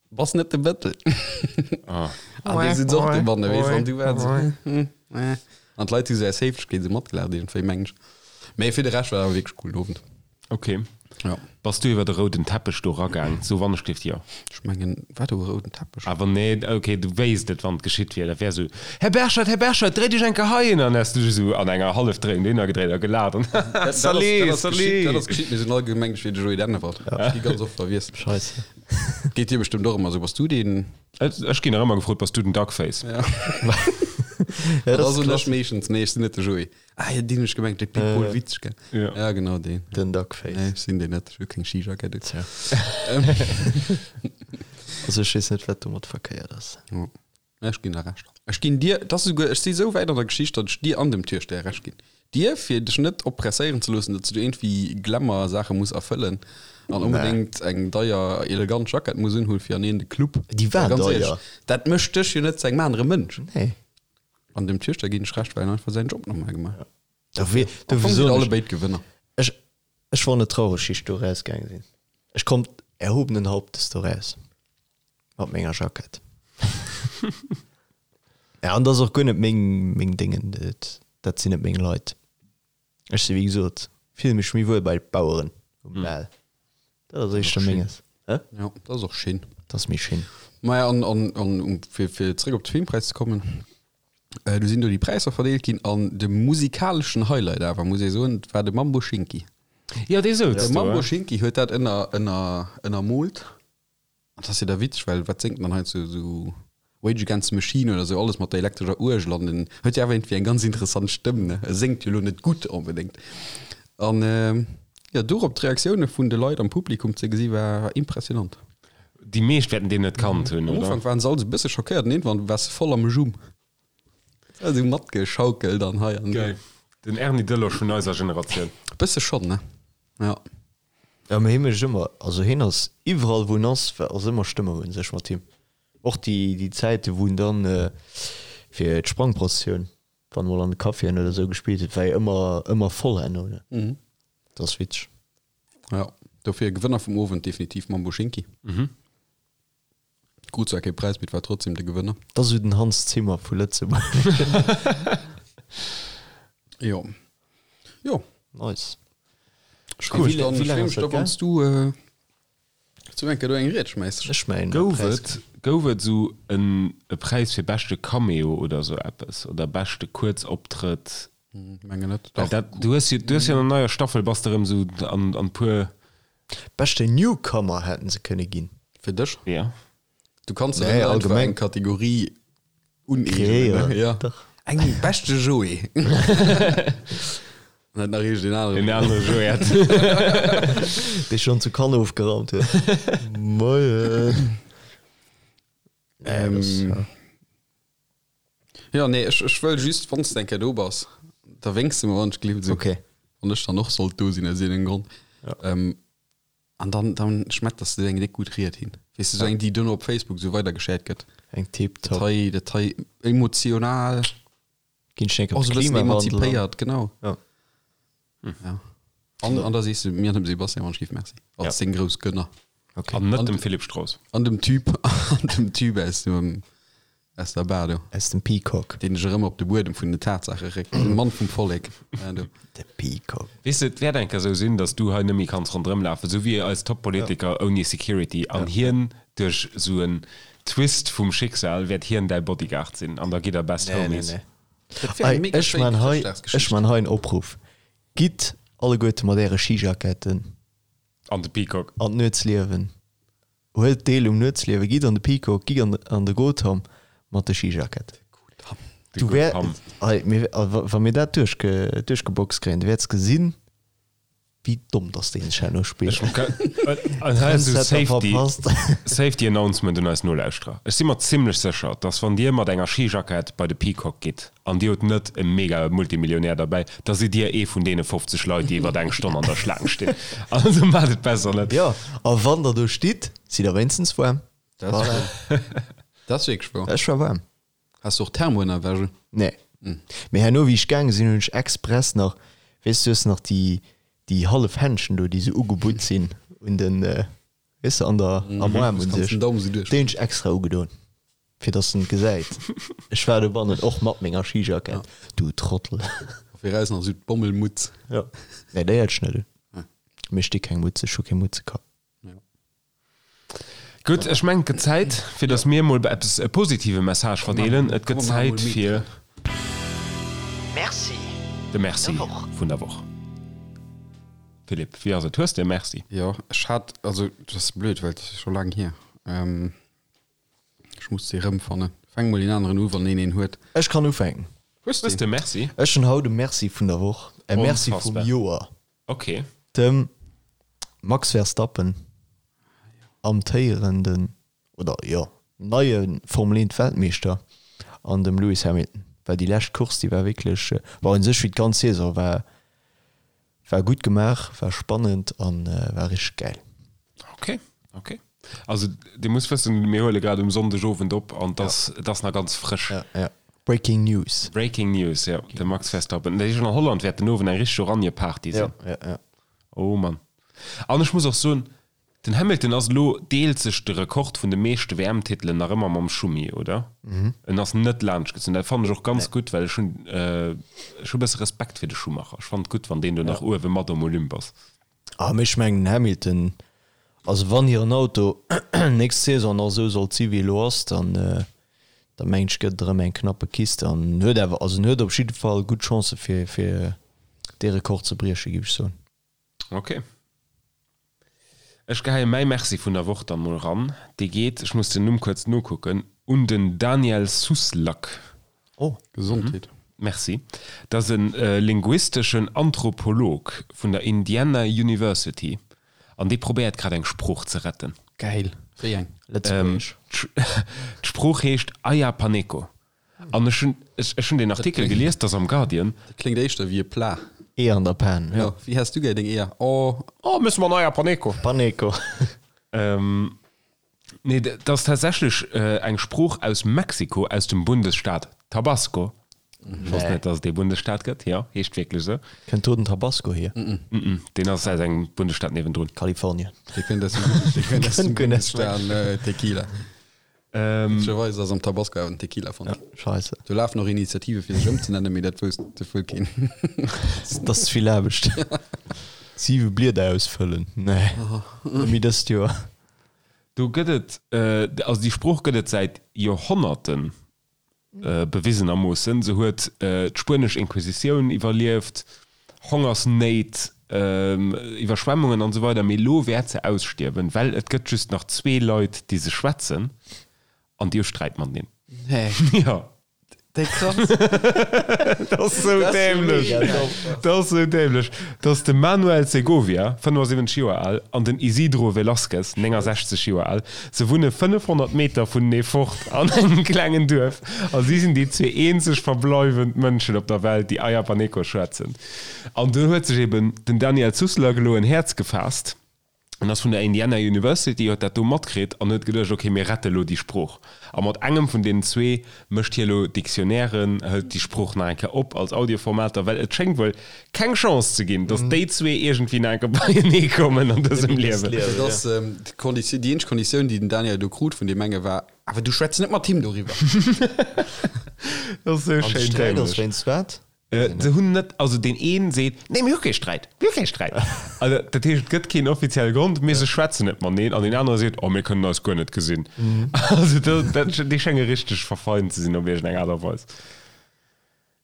Bass net de Bëttel. Ah. An du sitz och dobanne, weess, an du war esou, hm, eh. An d'Leit hu sou aus Héiflechkeet esou matgelaacht iergendwéi, mengen ech. Mee fir de Rescht war awer wierklech coolen Owend. Okay. Ja. Bass du iwwer de rouden Teppech do ragaang? So wann ech gleeft, jo. Ech mengen, war do e rouden Teppech? Awer nee, ok, du wéisst et, wann et geschitt wier. Dat wär esou, Här Berschert, Här Berschert, dréi dech eng Kéier heihin! An häss du dech esou an enger Hallefdréiung dohinner gedréit a gelaacht an, Dat ass, Salut, dat ass geschitt, dat salut! ass geschitt. Mir sinn all gemengt, ech wier de Joé Dennewald. Ech gi ganz oft verwiesselt. Scheisse. Geet dir bestëmmt och ëmmer esou. Bass du deen? Ech ginn nach ëmmer gefrot, Bass du den Duckface? Ja. Ja, Dat dat ass ass un ech klassisch. meeschtens. Nee, ech sinn net de Joé. Ah jo, deen hunn ech gemengt, de Pit Paul Witzsch, gell? Ja. Ja, genau deen. Den Duckface. Nee, ech sinn deen net. Ech hu keng Skijackett un. Tja. Also ech weess net, wat domat verkéiert ass. Jo. Nee, ech ginn der Recht. Ech ginn dir, et ass esouguer, ech si esou wäit an der Geschicht, datt ech dir an dem Türsteher Recht ginn. Dir, fir dech net oppresséieren ze loossen, datt s du iergendwéi Glamour-Saache muss erfëllen an onbedéngt eng deier, elegant Jackett muss unhunn, fir an een de Club. Déi war Well ganz deier. éierlech, dat mécht dech jo net zu engem anere Mënsch. Nee. An dem Türsteher ginn ech Recht, well en einfach säin Job normal gemaach huet. Dofir, Am dofir Fong sinn soen alle ech, béid Gewënner. ech, ech war net traureg, wéi ech do erausgaange sinn. Ech konnt erhobenen Hauptes do raus mat menger Jackett. Ja, an dat ass och guer net meng, meng Déngen, dat, dat sinn net meng Leit. Ech si wéi gesot, fille mech méi wuel bei d'Baueren um Bal. Dat ass éischter menges. Hä? Ja, dat ass och schéin. Dat ass méi schéin. Maja, an, an, an um, fir, fir zréck op de Filmpräis ze kommen, äh, du sinn do déi Präisser verdeelt ginn an de musikaleschen Highlight awer, muss ee soen, war de Mambo Schinki. Jo, dee souz De do, Mambo hä? Schinki huet dat ënner, ënner, ënnermoolt. An dat ass jo da witzeg, well wat séngt en dann hei zu esou Rage Against the Machine oder esou, alles mat der elektrescher Uergel an en huet jo awer iergendwéi eng ganz interessant Stëmm, ne? E séngt jo elo net gutt onbedéngt. An jo, dorop d'Reaktioune vun de Leit am Publikum ze gesi war impressionant. Déi meescht wäerten deen net kannt hunn, Am oder? Ufank waren se all esou e bësse schockéiert an iergendwann war se voll am Jumm. Esou matgeschaukelt an hei an do. Geil. Den Erny Delosch vun eiser Generatioun. E bësse schonn, ne? Ja. Ja, mee hie mécht ëmmer, also hien ass iwwerall wou en ass, ass ëmmer Stëmmung un sech mat him. Och déi déi Zäite wou en dann fir d'Sprangprozessioun, wann emol an de Caféen oder esou gespillt huet, war jo ëmmer ëmmer voll herno, ne? Dat ass witzeg. Ja, dofir Gewënner vum Owend definitiv Mambo Schinki. Krut zwar kee Präis, mee et war trotzdem de Gewënner. Dat ass esou den Hans Zimmer vu Lëtzebuerg. Jo. Jo. Nice. Ech Cool. freeë mech dann, Wéi ech laang freeë ass mech dat da, wann s du zu eng Kéier do eng Ried schmäiss. Ech schmäien e Gouf Präis. et, gouf et esou en e Präis fir beschte Cameo oder esou eppes oder beschte Kuerzoptrëtt? Mengen net. Well Dach. dat, du hues jo, du hues jo an der neier Staffel bass de erëm esou an, an puer. Beschte Newcomer hätten se kënne ginn. Fir dech? Ja. Du kanns der Nee, net einfach allgemeng. eng Kategorie uneegnen, ne? Kreéieren. Ja. Dach. Eng beschte Joé. An net nach iergend een anere. En anere Joé hätt. Dee schonn zu Cannes ofgeraumt huet. Moien. Ähm, Nee, das, ja. Ja, nee, ech, ech wëll just, wann s de eng Kéier do bass, da wénks de mer, wann ech gleef, esou. Okay. Wann ech dann och sollt do sinn, aus iergendengem Grond. Ja. Ähm, an dann, dann schmetters de eng déck gutt Ried hin. Weess de, esou eng, déi duerno op Facebook esou weidergeshared gëtt. Eng Dat tiptop. hei, dat hei emotional, Ginn ech eng Kéier och op esou e bëssen Klimawandel an. emanzipéiert, genau. Ja. Ja. An, an da sees de mir an dem Sebastian, wann ech giff, Merci. Als Ja. deng grouss Gönner. Okay. An net dem Philippe Strauss. An dem Typ, an dem Typ aus dem, aus der Bar do. Aus dem Peacock. Deen dech erëm op de Buedem vun den Tatsaache réckt. De Mann vum Vollek. Ja, do. De Peacock. Weess de, et wäert eng Kéier esou sinn, datt du hei net méi kanns ronderëm lafen, esou wéi eis Top-Politiker ouni Security. An hien, duerch esou en Twist vum Schicksal, wäert hien däi Bodyguard sinn an da gitt der Best Nee, nee, Homies. nee. Dat wär eng Ei, mega ech schéin man hei, ech Chrëschtdagsgeschicht. man hei en Opruff. Gitt alleguerte mat äre Skijacketten An de Peacock. an d'Nuetsliewen. Huelt deel um Nuetsliewen, gitt an de Peacock, gitt an an de Gotham mat de Skijackett. De Du wär, Gotham. ei, mir, a wa wa mir dat duerchge, duerchgeboxt kréien, du wäerts gesinn, wéi domm dass deen sech herno spillt. Ech ka, an hei ass esou Trendsetter Safety, verpasst. Safety Announcement un eis Nolauschterer. Ech si mer zimlech sécher, dass wann Dir mat enger Skijackett bei de Peacock gitt, An dir hutt net e mega Multimillionär derbäi, da sidd dir ee vun deene 50 Leit, déi iwwert eng Stonn an der Schlaang stinn. Also maacht et besser net. Jo, a wann der do stitt, sidd der wéinstens waarm. Dat ass wouer. Dat ass wierklech wouer. Ech war waarm. Has du och Thermoënnerwäsche? Nee. Mee herno, wéi ech gaange sinn, hunn ech express nach, weess du, hues nach déi, déi hallef Händschen do, déi sou ugebutt sinn un den, weess de, an der, am Aarm un sech. Den Daumen sou duerch. Déi hunn ech extra ugedoen. Fir dass en et gesäit. Ech war dobannen och mat menger Skijackett. Du Trottel. A viraus nach esou d'Bommelmutz. Jo. Nee, déi hat ech net un. Mir sti keng Mutz, ech hu kee Mutzekapp. Gutt, ech mengen et gëtt Zäit fir datt mir emol eppes e positive Message verdeelen. Et gëtt Zäit fir Merci de Merci vun der Woch. Philippe, wéi ass et? Hues de e Merci? Jo, ech hat, also dat ass blöd, well et ass scho laang hier. Ech muss se erëmfannen. Fänk mol een aneren u, wann een een huet. Ech kann ufänken. Hues de e Merci? Ech hunn haut e Merci vun der Woch, e Merci vum Joer. Ok. Dem Max Verstappen, amtéierenden, oder jo, neie Formel 1 Weltmeeschter an dem Lewis Hamilton, well déi lescht Course, déi war wierklech, bon u sech wéi d'ganz Saison, war war gutt gemaach, war spannend an war richteg gäil. Ok, ok. Also Dir musst wëssen, mir huele grad um Sonndeg Owend op an et ass, et ass nach ganz frësch. Ja, ja. Breaking News. Breaking News, jo, de Max Verstappen. Dat heescht, an Holland wäert den Owend eng richteg Oranje-Party sinn. Ja, ja, ja. Oh Mann. An ech muss och soen, den Hamilton ass elo, deelt sech de Rekord vun de meeschte WM-Titelen nach ëmmer mam Schumi, oder? En ass net laanschtgezunn. Dat fannen ech och ganz gutt, well ech hunn, ech hu e bësse Respekt fir de Schumacher. Ech fannen et gutt, wann deen do nach uewe mat um Olymp ass. Ah, mee ech mengen den Hamilton, also wann hiren Auto nächst Saison nach esou sollt si wéi elo ass, dann da mengen ech gëtt et erëm eng knappe Kiste an en huet awer, also en huet op jidde Fall gutt Chancë fir fir dee Rekord ze brieche géif ech soen. Ok. Ech geheie mäi Merci vun der Woch dann mol ran. Dee geet, ech muss den Numm kuerz nokucken, un den Daniel Suslak. Oh, Gesondheet. Merci. Dat ass e linguisteschen Anthropolog vun der Indiana University an dee probéiert grad eng Sprooch ze retten. Gäil. Wéi eng? Lëtzebuergesch. D'Sprooch heescht Ayapaneco an ech hunn, ech hunn deen Artikel gelies, dat ass am Guardian. Dat kléngt éischter wéi e Plat. Eeër an der Pan, jo. Wéi has du gär deng Eeër? Oh. Oh, mësse mer en Ayapaneco. Paneco. Nee, dat ass tatsächlech eng Sprooch aus Mexiko, aus dem Bundesstaat Tabasco. Ech wosst net, dass et dee Bundesstaat gëtt. Jo, heescht wierklech esou. Kënnt do den Tabasco hier? Deen ass aus engem Bundesstaat niewendrun. Kalifornien. Dee kënnt aus dem, dee kënnt aus dem Bundesstaat Tequila. Witzegerweis ass am Tabasco awer den Tequila fonnt ginn. Scheisse. Do lafen och Initiative fir sech ëmzenennen, mee dat wousst de wuel keen. Dat ass ze vill Aarbecht. Siwe Blieder ausfëllen, nee, net méi dëst Joer. Do gëtt et, also déi Sprooch gëtt et säit Joerhonnerten, bewisenermoossen. Se huet d'spuenesch Inquisitioun iwwerlieft, Hongersnéit, Iwwerschwemmungen an esou weider, mee elo wäert se ausstierwen, well et gëtt just nach zwee Leit, déi se schwätzen an déi hu Sträit mateneen. Nee. Jo. Déi krass. Dat ass sou dämlech. Dat ass sou dämlech. Dat ass de Manuel Segovia, 75 Joer al, an den Isidro Velázquez, 69 Joer al. Se wunne 500 Meter vunenee fort an engem klengen Duerf a si sinn déi zwee eenzeg verbleiwend Mënschen op der Welt, déi Ayapaneco schwätzen. An do huet sech eben den Daniel Sussler elo en Häerz gefaasst. En ass vun der Indiana University, huet dat do matkritt an huet geduecht, ok, mir rette lo déi Sprooch. A mat engem vun deenen zwee mécht hie lo Dictionnairen, hëlt déi Sprooch nach eng Kéier op als Audioformater, well et schéngt wuel keng Chance ze ginn, datt déi zwee iergendwéi nach eng Kéier beienee kommen an dësem Liewen. Dat ass d'Konditioun, déi eenzeg Konditioun, déi den Daniel do krut vun deem enge war, Awer du schwätz net mat him doriwwer. Dat ass esou An de schéin Sträit ass dämlech. wéinst wat? Se hunn net, also deen een seet, nee mir hu kee Sträit, mir hu kee Sträit. Also dat heescht, et gëtt keen offizielle Grond, mee se schwätzen net mateneen. An deen anere seet, oh mir kënnen eis guer net gesinn. Also dat, dat, déi schénge richteg verfeint ze sinn op iergendeng Aart a Weis.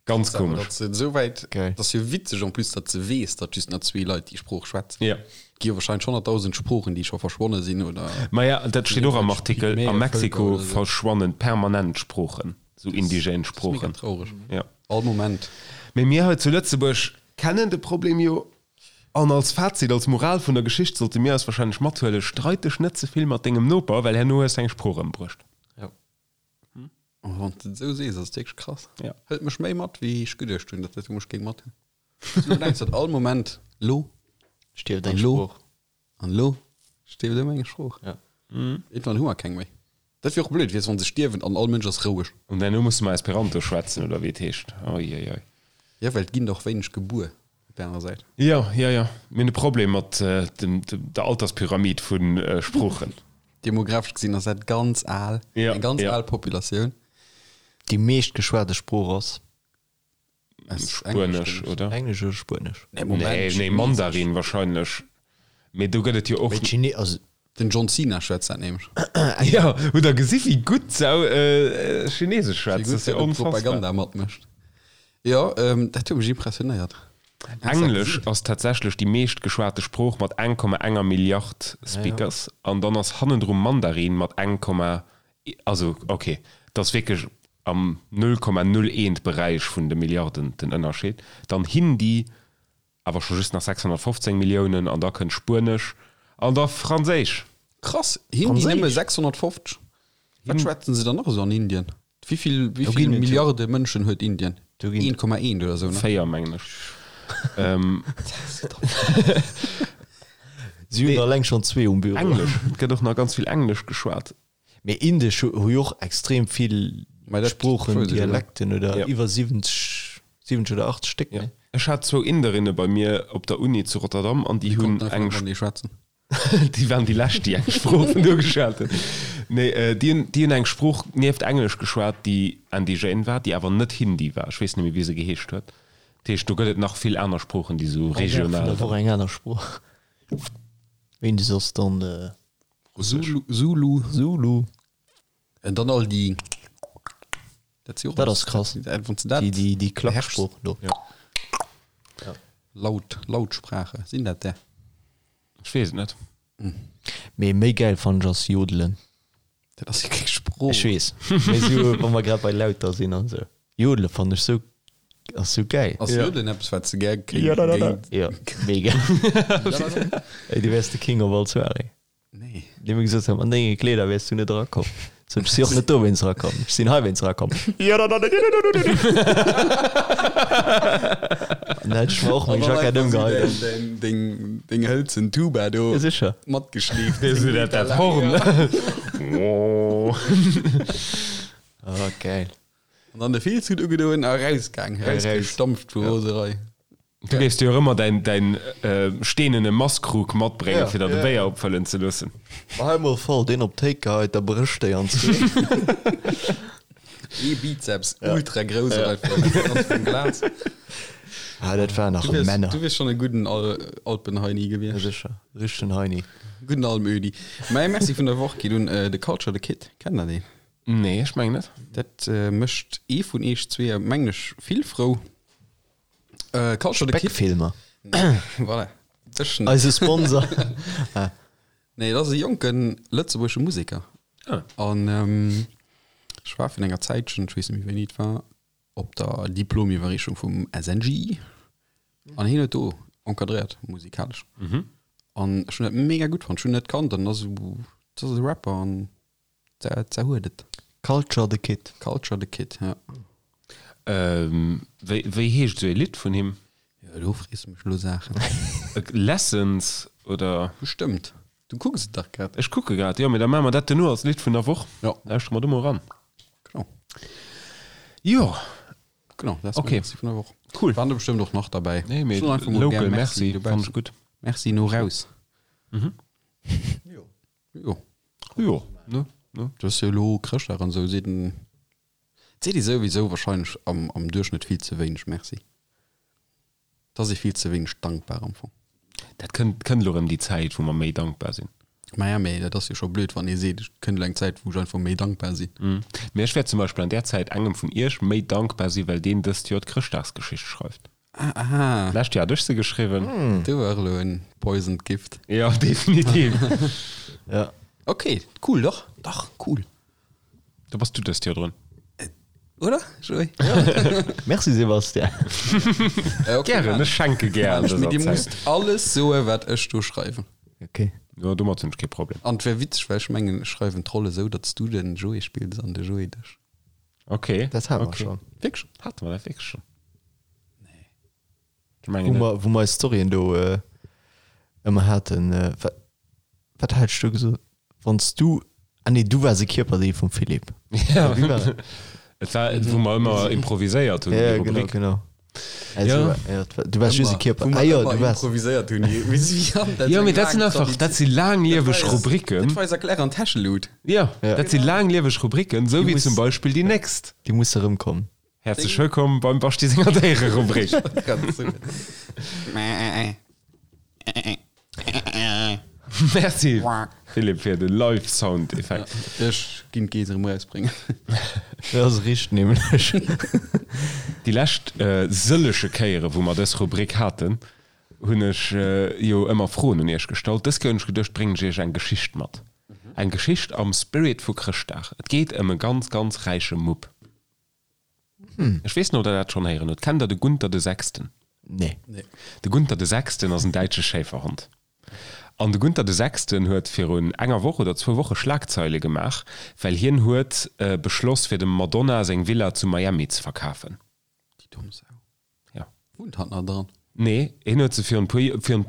Ganz Awer komesch. datt se esouwäit, Geil. dat ass jo witzeg en plus, datt se weess, datt just nach zwee Leit déi Sprooch schwätzen. Ja. Et gi jo wahrscheinlech 100.000 Sproochen, déi scho verschwonne sinn oder. Maja, dat steet och am Artikel, a Pygmäe Vëlker Mexiko oder esou. verschwannen permanent Sproochen. Sou indigène Sproochen. Mega traureg. Ja. All Moment. Mee mir hei zu Lëtzebuerg kennen de Problem jo. An als Fazit, als Moral vun der Geschicht sollte mir eis wahrscheinlech mathuelen, Streit dech net ze vill mat dengem Noper, well herno hues de eng Sprooch ëmbruecht. Ja. Oh, wann s de et esou sees, ass et wierklech krass. Ja. Hëlt mech méi mat, wéi ech geduecht hunn, datt dat mech géing mathuelen. Du denks, datt all Moment lo Stierft eng An lo? Sprooch. An elo stierft ëmmer eng Sprooch. Ja. Irgendwann hu mer keng méi. Dat wier och blöd, weess, wann se stierwen an all Mënsch ass roueg. An herno musse mer Esperanto schwätzen, oder wéi et heescht. Oi, oi, oi. Jo, well et ginn der och wéineg gebuer op där anerer Säit. Jo, jo, jo. Mir hunn e Problem mat dem, der Alterspyramid vu Sproochen. Demographesch gesinn ass dat ganz al, Ja, eng ganz ja. al Populatioun. Déi meescht geschwate Sprooch ass? Spuenesch, oder? Englesch oder Spuenesch? Nee, Moment, Nee, nee, Mandarin wahrscheinlech. Mee do gëtt et jo och. Mee d'Chine, also. Den John Cena schwätzt dat nämlech. Jo, hutt der gesi wéi gutt se Chinesesch schwätzt? Dat ass jo onfassbar. Propaganda matmécht. Jo, dat huet mech impressionéiert. Englesch ass tatsächlech déi meescht geschwate Sprooch mat 1,enger Milliard Speakers an dann ass hannendru Mandarin mat eng Komma, also ok, dat ass wierklech am 0,01 Beräich vun de Milliarden den Ënnerscheed. Dann Hindi, awer scho just nach 615 Milliounen an da kënnt Spuenesch an da Franséisch. Krass, Hindi nëmme 650? Wat schwätzen se dann nach esou an Indien? Wéi vill, wéi vill Milliarde Mënschen huet Indien? 1,1 oder esou, ne? 4 mengen ech. Si hunn alleng schonn zwee um Büro. Englesch, et gëtt och nach ganz vill Englesch geschwat. Mee Indesch hu jo och extrem vill Sproochen, Dialekten oder iwwer 70, 70 oder 80 Stéck, ne? Ech hat zwou Inderinne bei mir op der Uni zu Rotterdam an déi hunn eng. Déi waren déi lescht, déi eng Sprooch vun do geschwat hunn. Nee, déi hunn, déi hunn eng Sprooch nieft Englesch geschwat, déi indigène war, déi awer net Hindi war. Ech weess net méi, wéi se geheescht huet. Dat heescht, do gëtt et nach vill aner Sproochen, déi esou regional. Vun der Woch eng aner Sprooch. Wéini soss dann? Russesch. Zulu. Zulu. En dann all déi. Dat si och. Dat ass krass. Wann s de dat. Déi, déi Klacksprooch do. Ja. Laut, Lautsprache, sinn dat där? Ech weess et net. Mee méi gäil fannen ech ass Jodelen. Dat ass jo keng Sprooch. Ech weess, mee sou wa mer grad bei Lauter sinn an sou. Jodele fannen ech sou, ass sou gäil. Ass Jodelen eppes wat s de gär kéint? Jo, mega. Ey, du wäers de King of all Soirée. Nee. Déi mir gesot haben, an denge Kleeder wäers du net erakomm. Sot ech, si och net dowéinst erakomm, ech sinn heiwéinst erakomm. An da hätt ech mer och meng Jackett ëmgeheit. Deng, deng hëlzen Tuba do. Ja, sécher. Matgeschleeft. Dee dat, dat Horn. Oh, geil. An dann de Filzhut ugedoen a rausgaang, rausgestampft vu Roserei. Du géifs dir och ëmmer däin, däin steenene Masskrug matbréngen, fir der de Béier opfëllen ze loossen. Ma hei mol voll deen op d'Théik geheit, da brécht déi an zwee. Ee Bizeps, ultra grouss op einfach vum Glas. Ah, dat waren nach Männer. Du wiers schonn e gudden Alpenheini gewiescht. Ja, sécher. Richtegen Heini. Gudden Almödi. Mäi Merci vun der Woch geet un de Culture the Kid. Kennt der deen? Nee, ech mengen net. Dat mécht ee vun eech zweeë, mengen ech, vill frou. Äh, Culture the Kid. Speckfilmer. Voilà. Dech net. Eise Sponsor. Ah. Nee, dat ass e jonken lëtzebuergesche Museker. Ah. An ähm, ech war vun enger Zäitchen, ech weess net méi wéini et war, op der Diplomiwwerreechung vum SNJ. An hien huet do encadréiert, musikalesch. Mhm. An ech hunn dat mega gutt fonnt. Ech hunn net kannt an ass esou, dat ass e Rapper an Dat huet et. Culture the Kid. Culture the Kid, ja. Wéi, wéi heescht esou ee Lidd vun him? Jo, do frees de mech elo Saachen. Lessons oder? Bestëmmt. Du kucks et dach grad. Ech kucke grad, jo, mee da maache mer dat duerno als Lidd vun der Woch. Jo. Lauschtere mer do mol eran. Genau. Jo. Genau, dat ass Okay. mäi Merci vun der Woch. Cool. Waren der bestëmmt och nach derbäi. Nee, mee Soen einfach mol local gär Merci, dobaussen. fannen ech gutt. Merci no raus. Mhm. Jo. Jo. Jo, ne, ne. Du ass jo elo Chrëschtdag an esou, seet en, et seet ee souwisou wahrscheinlech am, am Duerchschnëtt vill ze wéineg Merci. Et ass ee vill ze wéineg dankbar am Fong. Dat kënnt, kënnt elo erëm déi Zäit, wou mer méi dankbar sinn. Maja, mee dat ass jo scho blöd, wann ee seet, et kënnt elo eng Zäit, wou ech einfach méi dankbar sinn. Mee ech wäert zum Beispill an där Zäit engem vun iech méi dankbar sinn, well deen dëst Joer d'Chrëschtdagsgeschicht schreift. Ah, aha. D'lescht Joer hat ech se geschriwwen. Do war elo en poisoned gift. Jo, definitiv. Ja. Ok, cool, dach, dach, cool. Do bass du dëst Joer drun. Oder, Joé? Merci Sébastien. Okay, Gären, ech schenke gär an Mee dëser dir Zäit. musst alles soe wat ech do schreiwen. Ok. Jo, domat hunn ech kee Problem. An et wär witzeg, well ech mengen, ech schreiwen d'Roll esou, datt s du den Joé spills an de Joé dech. Ok. Dat hate mer ok. schonn. Wierklech? Hate mer dat wierklech schonn? Nee. Ech mengen Wou net. mer, wou mer eis Storyen do ëmmer haten. Wat, wat hat ech do gesot? Wann s du, ah nee, du waars e Kierperdeel vum Philippe. Ja. Wéi war dat? Et war, wou mer ëmmer improviséiert hunn, Ja, déi genau, Rubrik. genau. Also, Ja. ja, du waars just e Kierper. Wou Ah mer jo, ëmmer du waars. improviséiert hunn. Jo, mee dat sinn einfach, dat si laanglieweg Rubriken. Dat war eis Erklär an Täschelut. Jo, Ja. dat si laanglieweg Rubriken, esou Déi wéi muss- zum Beispill déi nächst. Déi muss erëmkommen. Häerzlech wëllkomm beim Baschti senger Déiererubrik. Merci Philippe fir de Live Sound Effekt. Ech ginn d'Geess erëm erausbréngen. Dat ass richt nämlech. Déi lescht sëllege Kéiere wou mer dës Rubrik haten, hunn ech jo ëmmer Froen un iech gestallt. Dës Kéier hunn ech geduecht, bréngen ech iech eng Geschicht mat. Eng Geschicht am Spirit vu Chrëschtdag. Et geet ëm e ganz, ganz räiche Mupp. Ech weess net, ob der dat schonn héieren hutt. Kennt der de Gunther de Sechsten? Nee. De Gunther de Sechsten ass en däitsche Schéiferhond. An de Gunther de Sechsten huet virun enger Woch oder zwou Woche Schlagzeile gemaach, well hien huet beschloss, fir dem Madonna seng Villa zu Miami ze verkafen. Déi domm Sau. Ja. Wunnt hatt nach dran? Nee, hien huet se virun puer, virun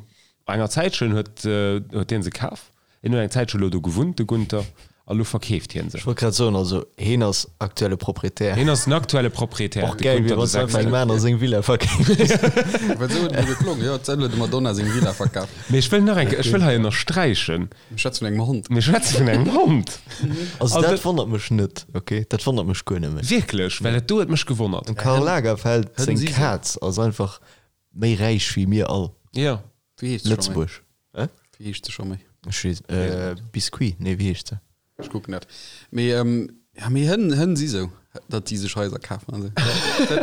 enger Zäitchen huet, huet hien se kaf. Hien huet eng Zäitche lo do gewunnt, de Gunther, a lo verkeeft hien se. Ech wollt grad soen, also heen ass aktuelle Proprietär. Hien ass den aktuelle Proprietär, Och gäil wier, wann s du einfach engem anere seng Villa verkeefs. Well esou huet et elo geklongen, jo, d'Sell huet dem Madonna seng Villa verkaf. Mee ech wëll nach eng Kéier, ech wëll hei ënnersträichen. Mir schwätze vun engem Hond. Mir schwätze vun engem Hond. Also dat wonnert mech net, ok? Dat wonnert mech guer net méi. Wierklech? Well dat do huet mech gewonnert. Dem Karl Lagerfeld seng Kaz ass einfach méi räich wéi mir all. Jo. Wéi heescht se scho méi? Lëtzebuerg. Hä? Wéi heescht se scho méi? Ech weess, Biscuit? Nee, wéi heescht se? Ech kucken dat. Mee, ja, mee Hënn, Hënn si sou, datt déi sech Haiser kafen an sou.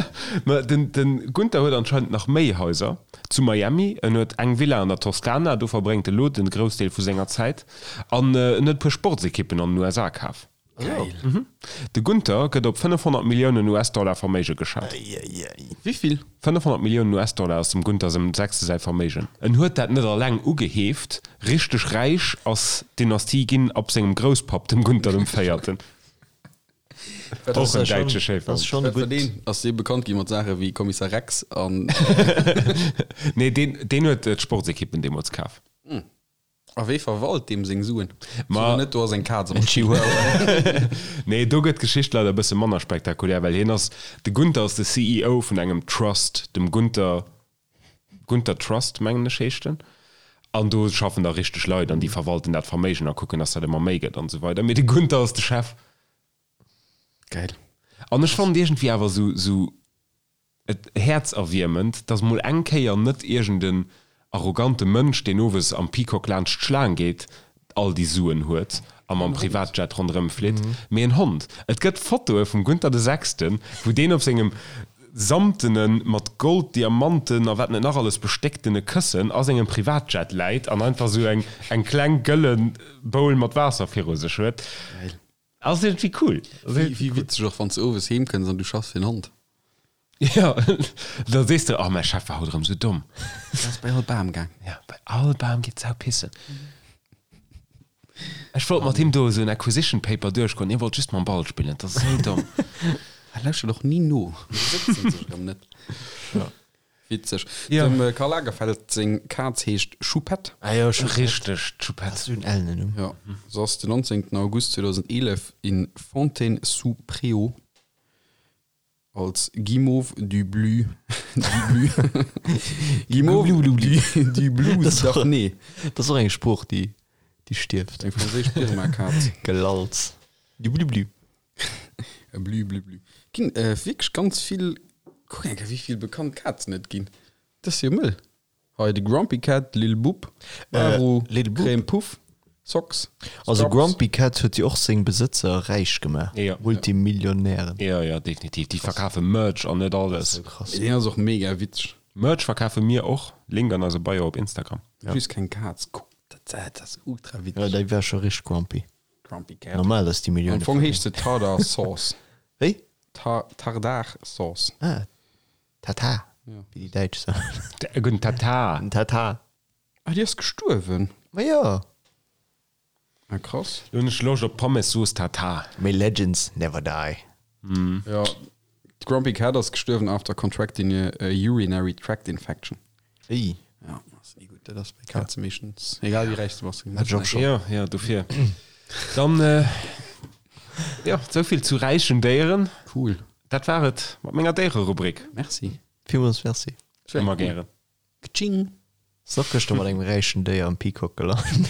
Ma den, den Gunther huet anscheinend nach méi Haiser zu Miami. En huet eng Villa an der Toskana, do verbréngt e lo den Groussdeel vu senger Zäit. An en huet e puer Sportsekippen an den USA kaf. Geil. De Gunther gëtt op 500 Milliounen US-Dollar Verméige geschat. Wéivill? 500 Milliounen US-Dollar ass dem Gunther sengem Sechste säi Verméigen. En huet dat net alleng ugeheeft, richteg räich ass d'Dynastie ginn ab sengem Grousspapp, dem Gunther dem Véierten. Och en däitsche Schéifer. Wat war deen? Ass dee bekannt gi mat Saache wéi Kommissar Rex an. Nee, deen, deen huet d'Sportsekippen deemools kaf. A wee verwalt deem seng Suen? Ma. Sot net, do ass eng Kaz am En Spill. Chihuahua. Nee, do gëtt d'Geschicht leider e bësse manner spektakulär, well hien ass, de Gunther ass de CEO vun engem Trust, dem Gunther, Gunther Trust, mengen ech heescht en. An do schaffen da richteg Leit an déi verwalten dat Verméigen a kucken, dass dat ëmmer méi gëtt an esou weider. Mee de Gunther ass de Chef. Geil. An ech fannen et iergendwéi awer esou, esou et häerzerwiermend, dass mol eng Kéier net iergend en arrogante Mënsch, deen owes am Peacock laanscht d'Schlaang geet, all déi Suen huet a mam Privatjet ronderëm flitt, mee en Hond. Et gëtt Fotoe vum Gunther de Sechsten, wou deen op sengem samtene, mat Gold, Diamanten a wat net nach alles bestécktene Këssen a sengem Privatjet läit an einfach sou eng eng kleng gëlle Bowl mat Waasser viru sech huet. Geil. Ass iergendwéi cool. Wéi witzeg och wann s de owes heem kënns an du schaffs fir en Hond. Jo, da sees de, oh mäi Chef war haut erëm sou domm. Deen ass bei all Bam gaang. Ja, bei all Bam geet d'Sau pissen. Ech wollt mat him do esou en Acquisition Paper duerchgoen, hie wollt just mam Ball spillen, dat ass esou domm. Hei lauschtert och ni no, do sëtzen sech erëm net. Witzeg. Ja. Dem Karl Lagerfeld seng Kaz heescht Choupette. Ah jo, Choupette. Richteg, d'Choupette. Dat ass esou en ellenen Numm. Ja, se ass den 19. August 2011 in Fontaine-sous-Préaux als Guimauve du Blu, du Blu, Guimauve du, du Blues d'Arnay. Dat ass och eng Sprooch, déi, déi stierft. Eng franséisch Birma-Kaz. Gelalz. Du Blu Blu. Blü blü blü. Ginn wierklech ganz vill, kuck eng Kéier wéi vill bekannt Kazen et ginn. Dat ass jo mëll. Hei de Grumpy Cat, Lil Bub, Maru, Lil Bub. Crème Puff, Socks, Also Scrubs. Grumpy Cat huet jo och seng Besëtzer räich gemaach. Jo. Multimillionären. Jo, jo, definitiv. Déi verkafe Merch an net alles. Sou krass. Deen ass och mega witzeg. Merch verkafe mir och. Link an eiser Bio op Instagram. Just keng Kaz. Kuck, dat ass ultra Jo, witzeg. déi war scho richteg grumpy. Grumpy Cat. Normal, dass déi Millioune Am Fong heescht se Tardar Sauce. Wéi? Ta Tardar Sauce. Ah, Tata, Ja. wéi déi Däitsch soen. E gudden Tata. Den Tata. Ah, déi ass gestuerwen. Ma jo. Ah, krass. Lo hunn ech Loscht op Pommes-Sauce Tatar. May legends never die. Ja, d'Grumpy Cat ass gestuerwen after contracting a, a urinary tract infection. Ey. Ja, ass ni gutt. Dat ass bei Kaze meeschtens, egal wéi räich s du bass. Hat ech och schon. Jo, jo, dofir. Dann, jo, souvill zu räichen Déieren. Cool. Dat war et mat menger Déiererubrik. Merci. Villmools Merci. Ëmmer gären. Kaching. Ass och gëschter mat engem räichen Déier am Peacock gelant.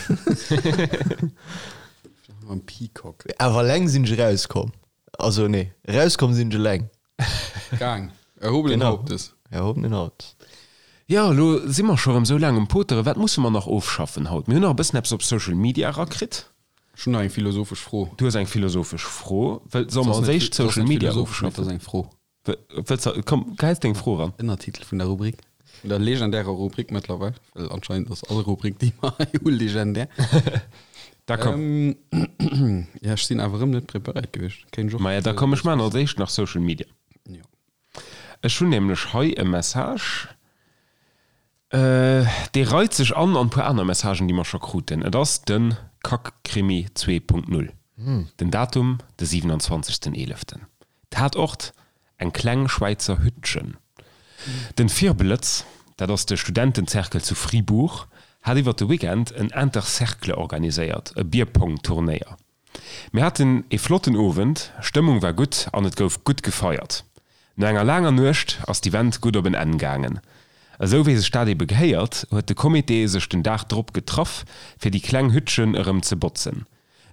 Am Peacock. Awer eleng sinn ech erauskomm. Also nee, erauskomm sinn ech eleng. Gaang. Erhobenen Genau. Hauptes. Erhobenen Hauptes. Jo, elo si mer scho rëm sou laang um Poteren. Wat musse mer nach ofschaffen haut? Mir hunn nach e bëssen eppes op Social Media erakritt. Ech hunn nach eng philosophesch Fro. Du hues eng philosophesch Fro. Wëll, solle mer als éischt Social Media ofschaffen? Dat ass eng Fro. Wëlls de, komm, gehäis deng Fro eran. Ënnertitel vun der Rubrik, vun der legendärer Rubrik mëttlerweil, well anscheinend ass all Rubrik, déi mer hei hu legendär. Da komm. Ja, ech sinn awer erëm net preparéiert gewiescht. Kéint ech och. Maja, da komm, ech maachen als éischt nach Social Media. Jo. Ech hunn nämlech hei e Message, dee reit sech an an e puer aner Messagen, déi mer scho kruten. Et ass de Kackkrimi 2.0. Den Datum, de 27. Eeleften. Tatort, eng kleng Schwäizer Hüttchen. Den Firblëtz, dat ass de Studentenzerkel zu Fribourg, hat iwwert de Weekend en Intercercle organiséiert, e Bierpong-Turnéier. Mir haten ee flotten Owend, Stëmmung war gutt an et gouf gutt gefeiert. No enger laanger Nuecht ass d'Event gutt op en Enn gaangen. Esou wéi sech dat ebe gehéiert, huet de Comité sech den Dag drop getraff, fir déi kleng Hüttchen erëm ze botzen.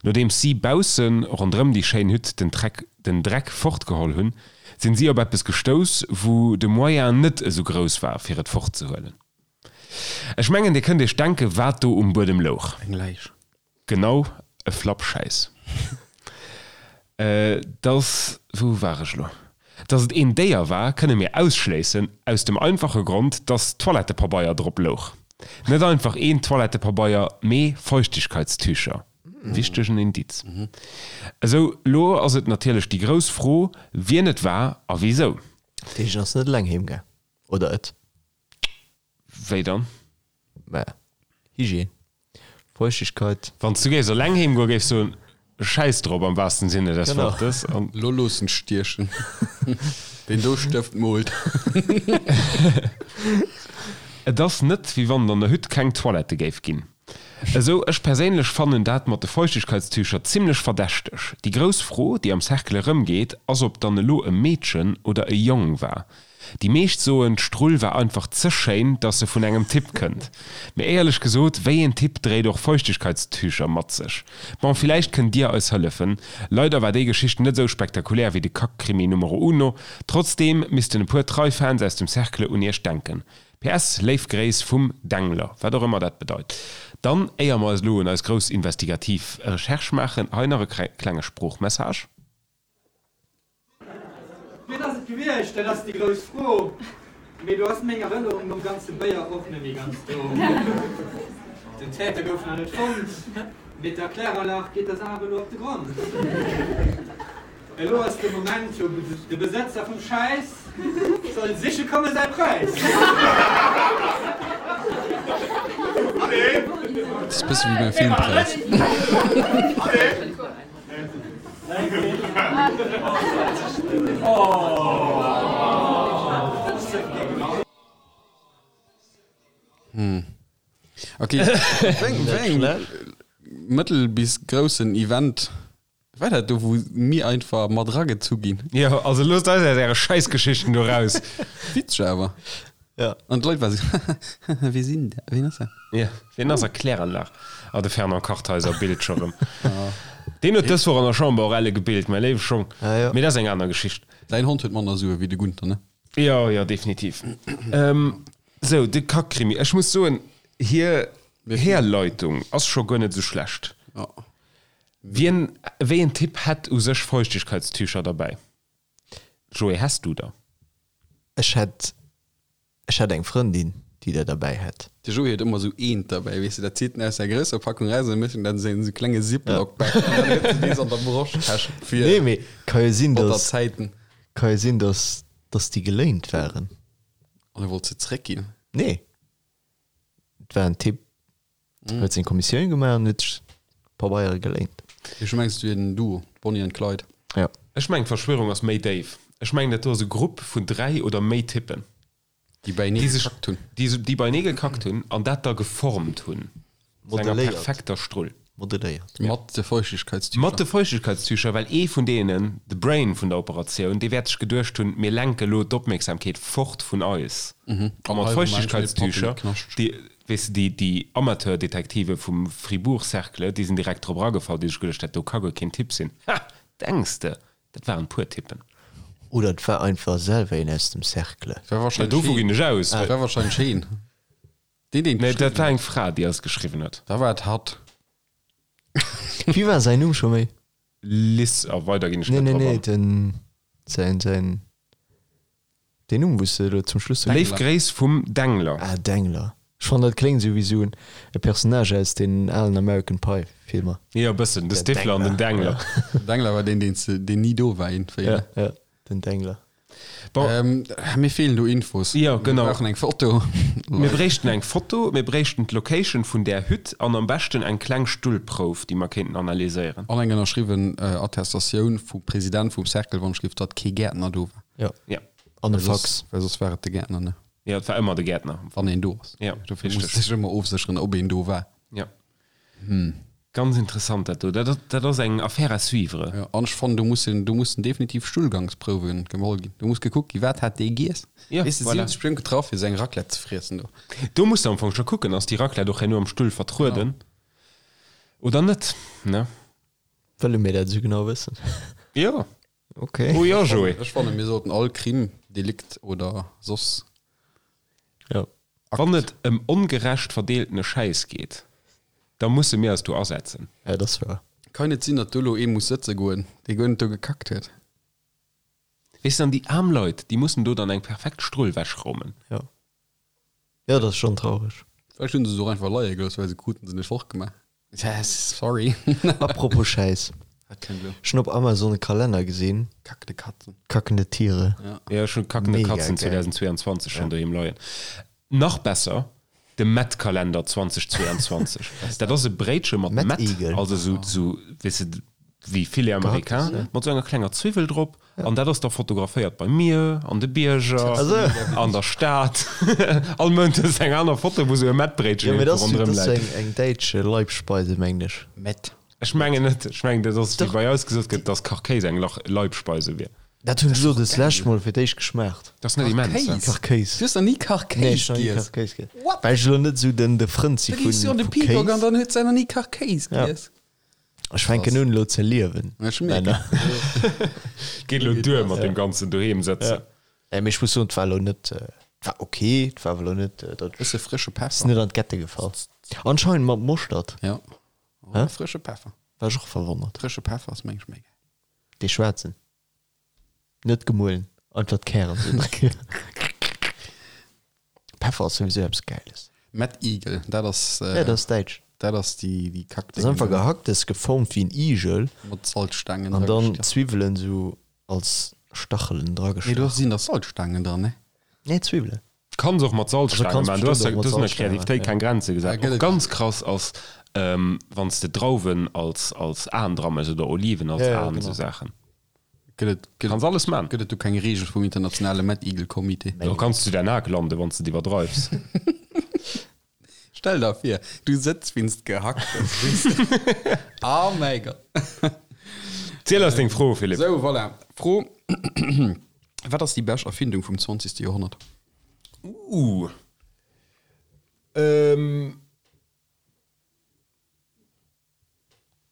Nodeems si bausse ronderëm déi schéin Hütt den Treck den Dreck fortgeholl hunn, sinn si op eppes gestouss, wou de Moyen net esou grouss war, fir et fortzehuelen. Ech mengen, dir kënnt iech denken, wat do um Buedem louch. Eng Läich. Genau, e Flappschäiss. Dass, wou war ech elo? Dass et een Déier war, kënne mir ausschléissen, aus dem einfache Grond, dass Toilettepabeier drop louch. Net einfach een Toilettepabeier, mee Feuchtigkeitstücher. Wichtegen Indiz. Esou, lo ass et natierlech déi grouss Fro, wien et war a wisou. D'Heeschen ass net eleng heem gaang, oder et? Wéi dann? Mä Hygiène, Feuchtigkeit. Wann s du géifs eleng heem goen, géifs soen, Schäiss drop am wahrsten Sinne des Genau. Wortes. An Lo loossen stiechen. Deen do Stëft moolt. Et ass net, wéi wann et an der Hütt keng Toilette géif ginn. Esou, ech perséinlech fannen dat mat de Feuchtigkeitstücher zimlech verdächteg. Déi grouss Fro, déi am Cercle erëmgeet, ass ob dann elo e Meedchen oder e Jong war. Déi meescht soen, d'Strull war einfach ze schéin, dass se vun engem Typ kënnt. Mee éierlech gesot, wéi een Typ dréit och Feuchtigkeitstücher mat sech? Bon, villäicht kënnt dir eis hëllefen. Leider war déi Geschicht net esou spektakulär wéi de Kackkrimi Numero Uno. Trotzdeem missten e puer trei Fans aus dem Cercle un iech denken. PS. Léif Gréiss vum Dengler, wat och ëmmer dat bedeit. Dann, éier mer eis elo un eis grouss investigativ Recherche maachen, hei nach e klenge Sproochmessage. Wien ass et gewiescht, dat ass déi grouss Fro, mee do ass meng Erënnerung nom ganze Béier och net méi ganz do. Den Täter gouf nach net fonnt, mee der Kläranlag geet der Saach elo op de Grond. Elo ass de Moment, wou de Besëtzer vum Schäiss soll siche komme säi Präis. Dat ass e bësse wéi beim Filmpräis. Ok, wéi engem mëttel bis groussen Event war dat do, wou mir einfach mat eragezu ginn? Jo, also loosst eis aus äre Schäissgeschichten do raus. Witzeg awer. Ja. An d'Leit war sou, Wie sinn dat? Wien ass dat? Ja, wien ass dat? Kläranlag. Ah, de Fernand Kartheiser billt scho rëm. Deen huet dës Woch an der Chamber och elle gebillt, mäi léiwe Schong. Ah, ja. Mee dat ass eng aner Geschicht. Däin Hond huet manner Sue wéi de Gunther, ne? Jo, jo, definitiv. Sou, de Kackkrimi. Ech muss soen, hir Herleitung ass scho guer net esou schlecht. Ja. Wien, wéi en Typ hätt u sech Feuchtigkeitstücher derbäi? Joé, häss du der? Ech hätt, ech hätt eng Frëndin, déi der derbäi hätt. De Joé huet ëmmer esou eent derbäi, weess de, dat zitt en aus der grousser Packung eraus an dann mécht en dat an esou klenge Ziploc-Bag an dann huet en dees an der Broschtäsch fir Nee, mee ka jo sinn, batter dass, Zäiten. ka jo sinn, dass, dass déi geléint waren. An e wollt se zréckginn? Nee, et war en Typ, Huet seng Kommissioun gemaach an huet sech Pabeiere geléint. Ech mengs et wier en Duo, Bonnie and Clyde. Ja. Ech mengen d'Verschwörung ass méi déif. Ech mengen dat do ass e Grupp vun 3 oder méi Typen, Déi beienee gekackt hunn. Déi beienee gekackt hunn an dat da geformt hunn zu enger perfekter Strull. Modelléiert. Mat de Feuchtigkeitstücher. Mat de Feuchtigkeitstücher, well ee vun deenen, de Brain vun der Operatioun, dee wäert sech geduecht hunn, mir lenke lo d'Opmierksamkeet fort vun eis. A mat Feuchtigkeitstücher, déi, weess de, déi, déi Amateurdetektive vum Fribourg Cercle, déi sinn direkt drop eragefall, déi sech geduecht, dat do ka guer keen Typ sinn. Ha! Denks de, dat waren puer Typen. Oder et war einfach selwer een aus dem Cercle. War Ja, wahrscheinlech dovu heen. ginn ech aus. War wahrscheinlech heen. Deen, deen Nee, dat geschriwwen war huet. eng Fra, déi eis geschriwwen huet. Da war et hatt. Wéi war säin Numm scho méi? Liz, a weider ginn ech Nee, net nee, drop nee, an. den, säin, säin, deen Numm, wou s de elo zum Schluss sou. Léif Gréiss vum Dengler. Ah, Dengler. Ech fannen, dat kléngt esou wéi esou e Personnage aus den alen American Pie Filmer. Jo, e bëssen. De Der Stifler an den Dengler. Dengler. Dengler war deen, deen s de, deen ni do war iergendwéi, Ja, ne? ja, den Dengler. Bon. Ähm, mir feelen do Infos. Jo, genau. Mir brauchen eng Foto. Mir bréichten eng Foto, mir bréichten d'Location vun där Hütt an am beschten eng kleng Stullprouf, déi mer kéinten analyséieren. An eng ënnerschriwwen Attestatioun vum President vum Cercle, wann ech géif, datt kee Gäertner do war. Ja. Ja. An e Well soss, Fax. well soss war et de Gäertner, ne? Jo, et war ëmmer de Gäertner. Wann een do ass. Ja, Dofir muss richteg. sech ëmmer ofsécheren, ob een do war. Ja. Ganz interessant dat do. Dat, dat ass eng Affaire à suivre. Ja, an ech fannen, do mussen, do mussen definitiv Stullgangsprouwe geholl ginn. Do muss gekuckt ginn, wat hat dee giess. Ja, Weess de, si voilà. hunn sech bestimmt getraff, fir seng Raclette ze friessen do. Do muss de am Fong scho kucken, ass déi Raclette och herno am Stull vertrueden oder net, ne? Wëlle mir dat esou genau wëssen? Jo. Okay. Oh jo, Joé. Ech fannen, mir sollten all Crime, Delikt oder soss. Ja. Wann et ëm ongerecht verdeeltene Schäiss geet, da musse mir eis do asetzen. Ja, dat ass wahr. Kann net sinn, datt do elo ee muss sëtze goen, dee guer net do gekackt huet. Weess de, an déi aarm Leit, déi mussen do dann eng perfekt Strull wechräumen. Ja. Ja, dat ass schonn traureg. Vläicht hunn se se och einfach leie gelooss, well se kruten se net fortgemaach. Sorry. Apropos Schäiss. Wat kënnt elo? Ech hunn op Amazon e Kalenner gesinn. Kackende Katzen. Kackende Tiere. Ja. Ja, ech hunn Kackende Mega Katzen geil. 2022 schonn doheem leien. Nach besser, de Mettkalender 2022. Dat ass e Bréitche mat Mett, Mettigel. also sou, sou, weess de, wéi Filet américain, Gehacktes, ja. mat sou enger klenger Zwiwwel drop. An dat ass da fotograféiert bei mir, an de Bierger, Also. an der Stad. All Mount hues de eng aner Foto, wou sou e Mettbréitchen Ja, mee dat irgendwo ass, ronderëm dat ass läit. eng, eng däitsch Leibspeise, mengen ech. Mett. Ech mengen net. Ech mengen, dat ass, wéi bei eis gesot gëtt, dass Kachkéis eng Lach Leibspeise wier. Dat hunn ech elo des lescht Mol fir d'éischt geschmaacht. Dat ass net immens, ne? Kachkéis. Du hues nach ni Kachkéis Nee, ech hunn nach ni giess? Kachkéis giess. What? Well ech elo net esou den, de Frënd si Da vu, gees du an de vu Peacock an Kéis. dann huet se nach ni Kachkéis Ja. giess. Ech fänken un elo ze liewen. Ech mierken. Männer. Geet elo duer mat deem ganzen doheem sëtzen. Nee, mee ech muss soen, et war elo net, et war ok, et war awer elo net, datt ech, Bësse frësche ass Peffer. net an d'Gette gefall. Anscheinend mat Moschtert. Ja. Hä? Frësche Peffer. War ech och verwonnert. Frësche Peffer ass meng ech méi geil. Dee schwaarzen. Net gemuelen, einfach d'Kären sou dran. Peffer ass souwisou eppes Gäiles. Mad Eagle, dat ass, Ja, dat ass däitsch. dat ass déi, déi Kack. Dat ass einfach Gehacktes, geformt wéi en Igel Mat Salzstangen an dann dragestach. Zwiwwelen sou als Stachelen Nee, do dragestach. sinn da Salzstangen dran, ne? Nee, Zwiwwelen. Kanns och mat Also Salzstaange kanns maachen. Du has bestimmt och mat du has der Salzstange Kreativitéit maachen, ja. keng Grenze gesat. Ja, gëtt Och et. ganz krass ass, ähm, wann s de Drauwen als, als Aen dra méchs oder Oliven als Ja, ja, Aen, genau. esou Saachen. Gëtt et, gëtt Kanns et, alles man. gëtt et do keng Reegel vum internationale Mad Eagle Comité? Do kanns du der Nak landen, wann s de et iwwerdreifs. Stell der vir, du sëtz wéinst Gehacktes, weess de. Oh mäi Gott. Ziel eis deng Fro, Philippe. Sou, voilà. Fro, Wat ass déi bescht Erfindung vum 20. Joerhonnert? Uh. Ähm.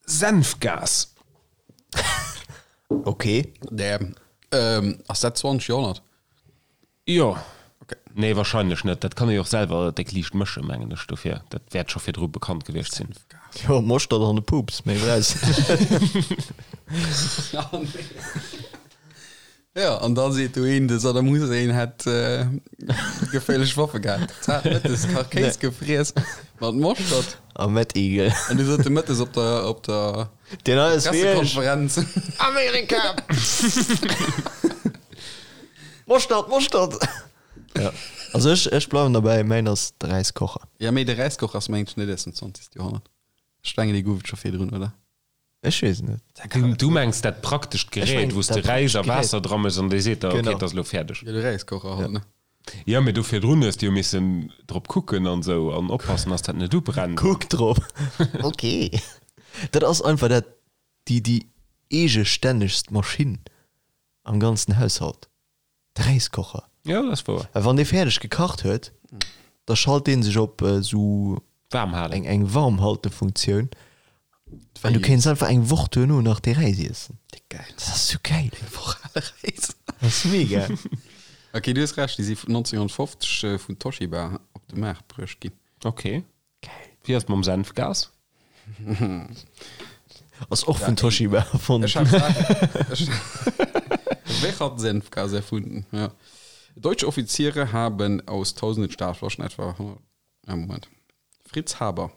Senfgas. Okay. Damn. Ähm, ass dat 20. Joerhonnert? Jo. Okay. Nee, wahrscheinlech net. Dat kann ee jo och selwer déck liicht mëschen, mengen ech. Dofir, dat wäert scho virdru bekannt gewiescht sinn. Jo, Moschtert an de Pups, méi brauchs de net. Ja, an da seet do een, de Saddam Hussein hätt geféierlech Waffe gehat. Zart mëttes Kachkéis gefriess mat Moschtert. A Mettigel. An du sot de mëttes op der, op der Deen hei ass wéi ech. Pressekonferenz. Amerika! Moschtert, Moschtert! Ja. Also ech, ech bleiwen derbäi, mäin ass de Räiskocher. Ja, mee de Räiskocher ass mengen ech net aus dem 20. Joerhonnert. Ech mengen, dee gouf et scho virdrun, oder? Ech weess et net. Du, du mengs dat praktescht Ech Gerät, mengen wou s de dat Räis a praktescht Gerät. Waasser dra méchs an dee seet der, okay, Genau. et ass elo fäerdeg. Ja, de Räiskocher halt, ne? Ja, mee do virdrun hues de jo missen drop kucken an sou an oppassen, dass dat net ubrennt. Kuck drop. Ok. Dat ass einfach dat, déi, déi eegestännegst Maschinn am ganzen Haushalt. De Räiskocher. Ja, dat ass wouer. Well wann dee fäerdeg gekacht huet, da schalt dee sech op esou Waarm halen. eng, eng Warmhaltefunktioun. An du kéints einfach eng Woch duerno nach dee Räis iessen. Déck geil. Dat ass sou geil. Eng Woch ale Räis. Ass mega. Ok, du hues Recht, déi si 1950 vun Toshiba op de Maart bruecht ginn. Ok. Wéi ass et mam Senfgas? Ass och vun Toshiba erfonnt. Ech hat ech Wer hat Senfgas erfunden? Ja. Deutsche Offiziere haben aus tausenden Stahlflaschen etwa 100 ah, Moment. Fritz Haber.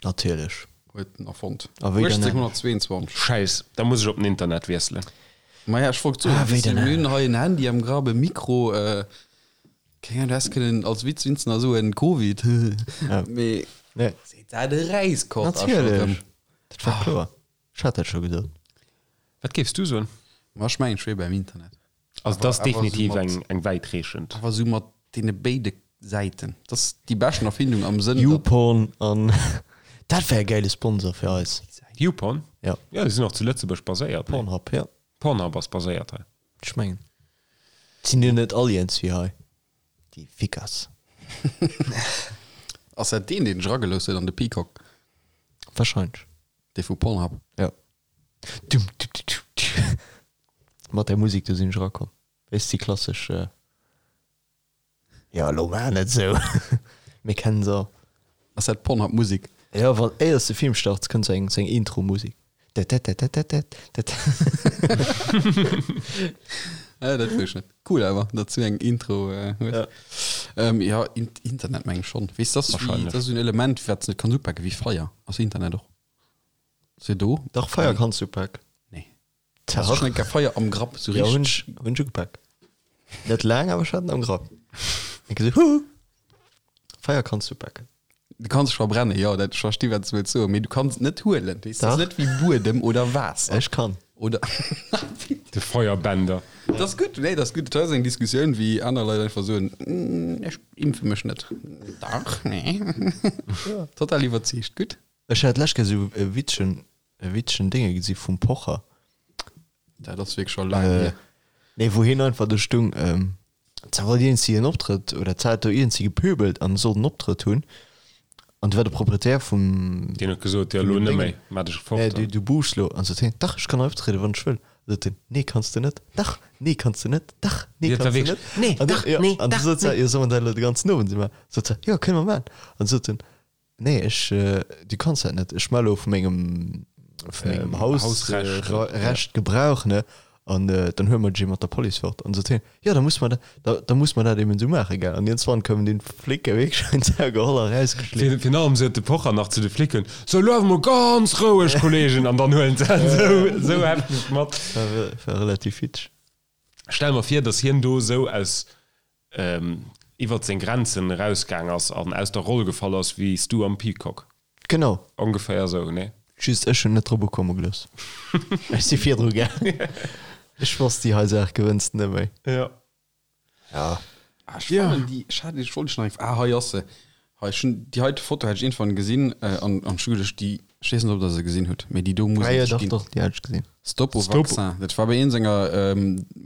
Natierlech. Huet en erfonnt. A wéi dann 1822. Schäiss, da muss ech op den Internet wiesselen. Maja, ech wollt soen, Ah, wéi weess de, dann mir hunn hei en Handy am Grapp, e Mikro, äh, keng Ahnung, du häss kënnen als Witz winzen a soen, Covid, Ja. mee Nee. seet dat e Räiskoch a scho rëm. Natierlech. Dat war kloer. Ech hat dat scho gesot. Wat géifs du soen? Ma ech mengen, ech wier beim Internet. Also dat ass Awer- awer definitiv sou mat- eng, eng wäitreechend. Awer sou mat deene béide Säiten. Dat ass déi beschten Erfindung am Sënn, datt. YouPorn an dat wär e gäile Sponsor fir eis. YouPorn? Ja. Ja, déi sinn och zu Lëtzebuerg baséiert, ne? Pornhub, ja. Pornhub ass baséiert hei. Ech mengen. Sinn jo net all iergendwéi hei, déi Fickers. Ass dat deen, deen sech eragelooss huet an de Peacock? Wahrscheinlech. Dee vu Pornhub? Ja. Dum, du, du, du, du. Mat där Musek do sinn ech erakomm. Weess déi klassesch. Jo, elo maach net esou. Mir kennen se all. Ass dat Pornhub Musek? Jo, wann éiers de Film starts, kënnt sou eng sou eng Intro Musek. Dädädädädädädä. Ah, dat wosst ech net. Cool awer, datt s du eng Intro hues. Jo, Internet meng ech schonn. Weess, dat ass wéi, dat ass esou en Element, wat s net kanns upaken, wéi Feier. Ass Internet och se do? Dach, Feier kanns du upaken. Nee. Hast du schon eng Kéier Feier am Grapp sou Ja, hunn richteg? ech, hunn ech ugepak. Net laang, awer ech hat en am Grapp. Eng Kéier sou, Huhu! Feier kanns du upaken. Du kanns dech verbrennen, jo, dat, ech versti wat s du wëlls soen, mee du kanns et net huelen. Weess, dat ass Dach. net wéi Buedem oder Waasser. Ech kann. Oder De Feuerbänder. Dat ass gutt, nee, dat ass gutt. Dat ass eng Diskussioun, wéi aner Leit einfach soen, Ech impfe mech net. Dach, nee. Total iwwerzeegt, gutt. Ech hat d'lescht Kéier sou e witzegen, e witzegen Dénge gesi vum Pocher. Dat ass wierklech scho laang hier. Nee, wou hien einfach do stung, zwar wollt iergendsi en Optrëtt, oder zwar hat do iergendsi gepöbelt an sollt en Optrëtt hunn, an du war de Proprietär vum. Deen huet gesot, jo, elo net méi, maach dech fort. Nee, du, du buuschs lo. An sot hien, dach, ech kann hei optrieden, wann ech wëll. An sot hien, nee, kanns de net, dach, nee, kanns de net, dach, nee, Dat war kanns de wierklech, net. nee, An dach, jo, nee, an du dach, sot se, nee. jo, soll mer dat elo de ganzen Owend esou maachen? Sot se, jo, kënne mer maachen. An sot en, Nee, ech, du kanns dat net. Ech melle vu mengem, vu mengem Haus, Hausrecht, Recht Gebrauch, ne? An dann huele mer dech mat der Police fort. An sot hien, jo, da muss mer dat, da, da muss mer dat eben esou maachen, gell? An iergendswann koumen dunn d'Flicke wierklech un d'Sau geholl a rausgeschleeft. Virun allem sot de Pocher nach zu de Flicken, So, elo awer mol ganz roueg, Kollegen! An dann huelen se en esou, esou hefteg mat. War, war relativ witzeg. Stell mer vir, dass hien do esou aus iwwert seng Grenzen erausgaang ass an aus der Roll gefall ass wéi s du am Peacock. Genau. Ongeféier esou, nee? Just ech hunn net drop ukomme gelooss. Ech si virdru gaang. Ech wosst, déi hei Saach gewënns de net méi. Jo. Ja. Ah, ech fannen déi, ech hat, ech wollt dech nach eng, ah hei ass se. Hei, ech hunn déi heite Foto hat ech iergendwann gesinn an an ech hu geduecht, déi, ech weess net ob der se gesinn hutt, mee déi do muss Ah jo, et dach, ginn. dach, déi hat ech gesinn. Stop au Stop. vaccin. Dat war bei een senger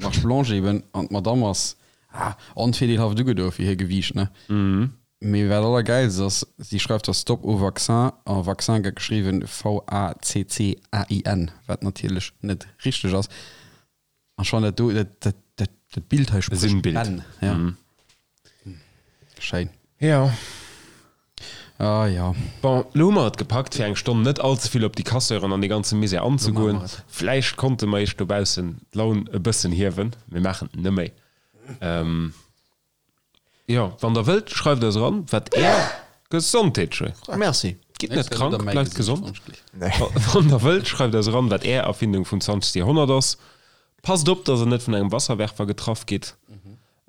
Marche blanche eben an d'Madame ass, ah, onvirdeelhaft ugedo fir hir Gewiicht, ne? Mee wat allergäilst ass, si schreift da Stop au vaccin a Vaccin gëtt geschriwwen V-A-C-C-A-I-N, wat natierlech net richteg ass. An schon dat do, dat, dat, dat, dat Bild hei spricht Sinnbild. Bänn. Ja. Mhm. Schéin. Ja. Ah ja. Bon, lo hu mer et gepackt, fir eng Stonn net all ze vill op déi Casseuren an dee ganze Misär anzegoen. Lo maache mer et. Vläicht konnte mer iech dobaussen d'Laun e bëssen hiewen. Mir maachen et net méi. Ähm. Jo, wann der wëllt, schreift eis eran, wat är Gesondheet, schön. Merci. Gitt net krank, bleift gesond. Nee. Wann der wëllt, schreift eis eran, wat är Erfindung vum 20. Joerhonnert ass. Passt op, dass der net vun engem Wasserwerfer getraff gitt.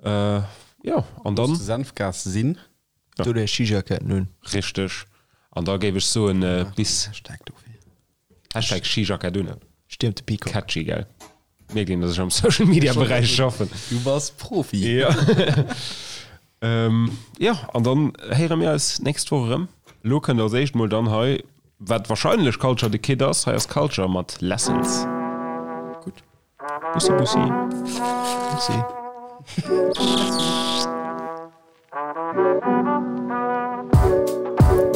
Jo, an dann. Looss de Senfgas sinn. Do där Skijackett un. Richteg. An da géif ech soen, bis. Hashtag dofir. Hashtag Skijackett un. Stiermt de Peacock. Catchy, gell? Mierkt een, dass ech am Social Media Beräich schaffen. Du bass Profi. Ja. ähm, ja, an dann héiere mir eis nächst Woch erëm. Lo kënnt als éischt mol dann hei, wat wahrscheinlech Culture the Kid ass. Hei ass Culture mat Lessons. Gutt. Bussi, bussi. Bussi.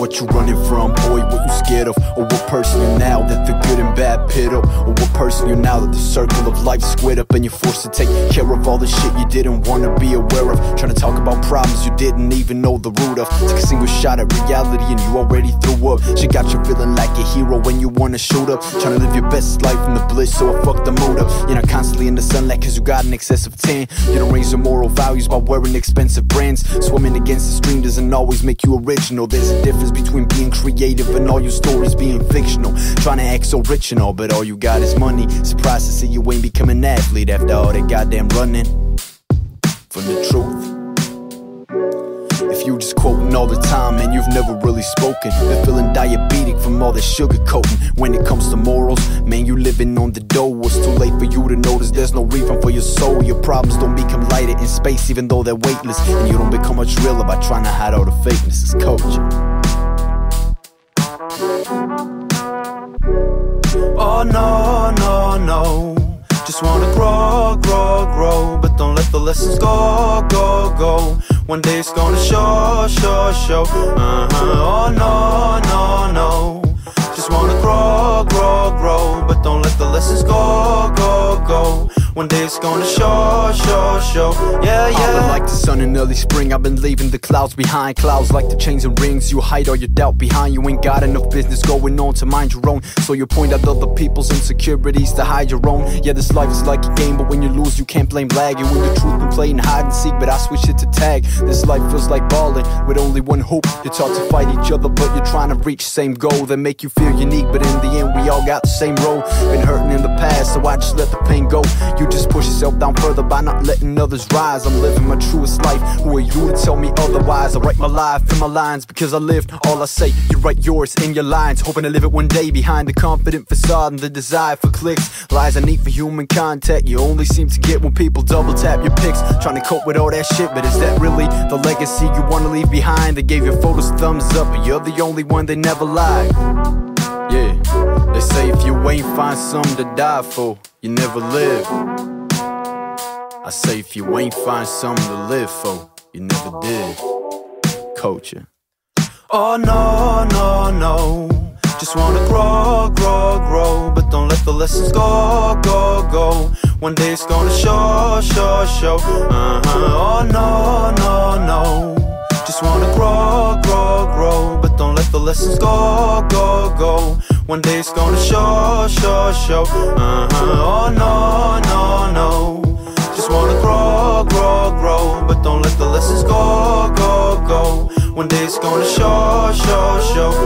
What you running from, boy, what you scared of? Or what person you now that the good and bad pit up? Or what person you now that the circle of life squared up and you're forced to take care of all the shit you didn't wanna be aware of? Trying to talk about problems you didn't even know the root of. Take a single shot at reality and you already threw up. She got you feeling like a hero when you wanna shoot up. Trying to live your best life in the bliss, so I fuck the mood up. You're not constantly in the sunlight cause you got an excessive tan. You don't raise your moral values by wearing expensive brands. Swimming against the stream doesn't always make you original. There's a difference between being creative and all your stories being fictional. Trying to act so rich and all, but all you got is money. Surprised to see you ain't become an athlete after all that goddamn running from the truth. If you just quoting all the time and you've never really spoken, been feeling diabetic from all the sugar coating. When it comes to morals, man, you living on the dough. It's too late for you to notice there's no refund for your soul. Your problems don't become lighter in space, even though they're weightless. And you don't become much realer by trying to hide all the fakeness. It's culture. Oh no, no, no. Just wanna grow, grow, grow. But don't let the lessons go, go, go. One day it's gonna show, show, show. Uh -huh. Oh no, no, no. Just wanna grow, grow, grow. But don't let the lessons go, go, go. One day it's gonna show, show, show. Yeah, yeah. I've been like the sun in early spring. I've been leaving the clouds behind. Clouds like the chains and rings. You hide all your doubt behind. You ain't got enough business going on to mind your own. So you point out other people's insecurities to hide your own. Yeah, this life is like a game, but when you lose, you can't blame lag. And when the truth been playing hide and seek, but I switch it to tag. This life feels like balling with only one hoop. You're taught to fight each other, but you're trying to reach same goal that make you feel unique. But in the end, we all got the same role. Been hurting in the past, so I just let the pain go. You just push yourself down further by not letting others rise. I'm living my truest life. Who are you to tell me otherwise? I write my life in my lines because I lived all I say. You write yours in your lines, hoping to live it one day behind the confident facade and the desire for clicks. Lies I need for human contact. You only seem to get when people double tap your pics. Trying to cope with all that shit, but is that really the legacy you wanna leave behind? They gave your photos thumbs up, but you're the only one they never lied. Yeah, they say if you ain't find something to die for, you never live. I say if you ain't find something to live for, you never did. Culture. Oh no, no, no. Just wanna grow, grow, grow. But don't let the lessons go, go, go. One day it's gonna show, show, show. Uh -huh. Oh no, no, no. Just wanna grow, grow, grow. But don't let the lessons go, go, go. One day it's gonna show, show, show. Uh -huh. Oh no, no, no. Just wanna grow, grow, grow. But don't let the lessons go, go, go. One day it's gonna show, show, show.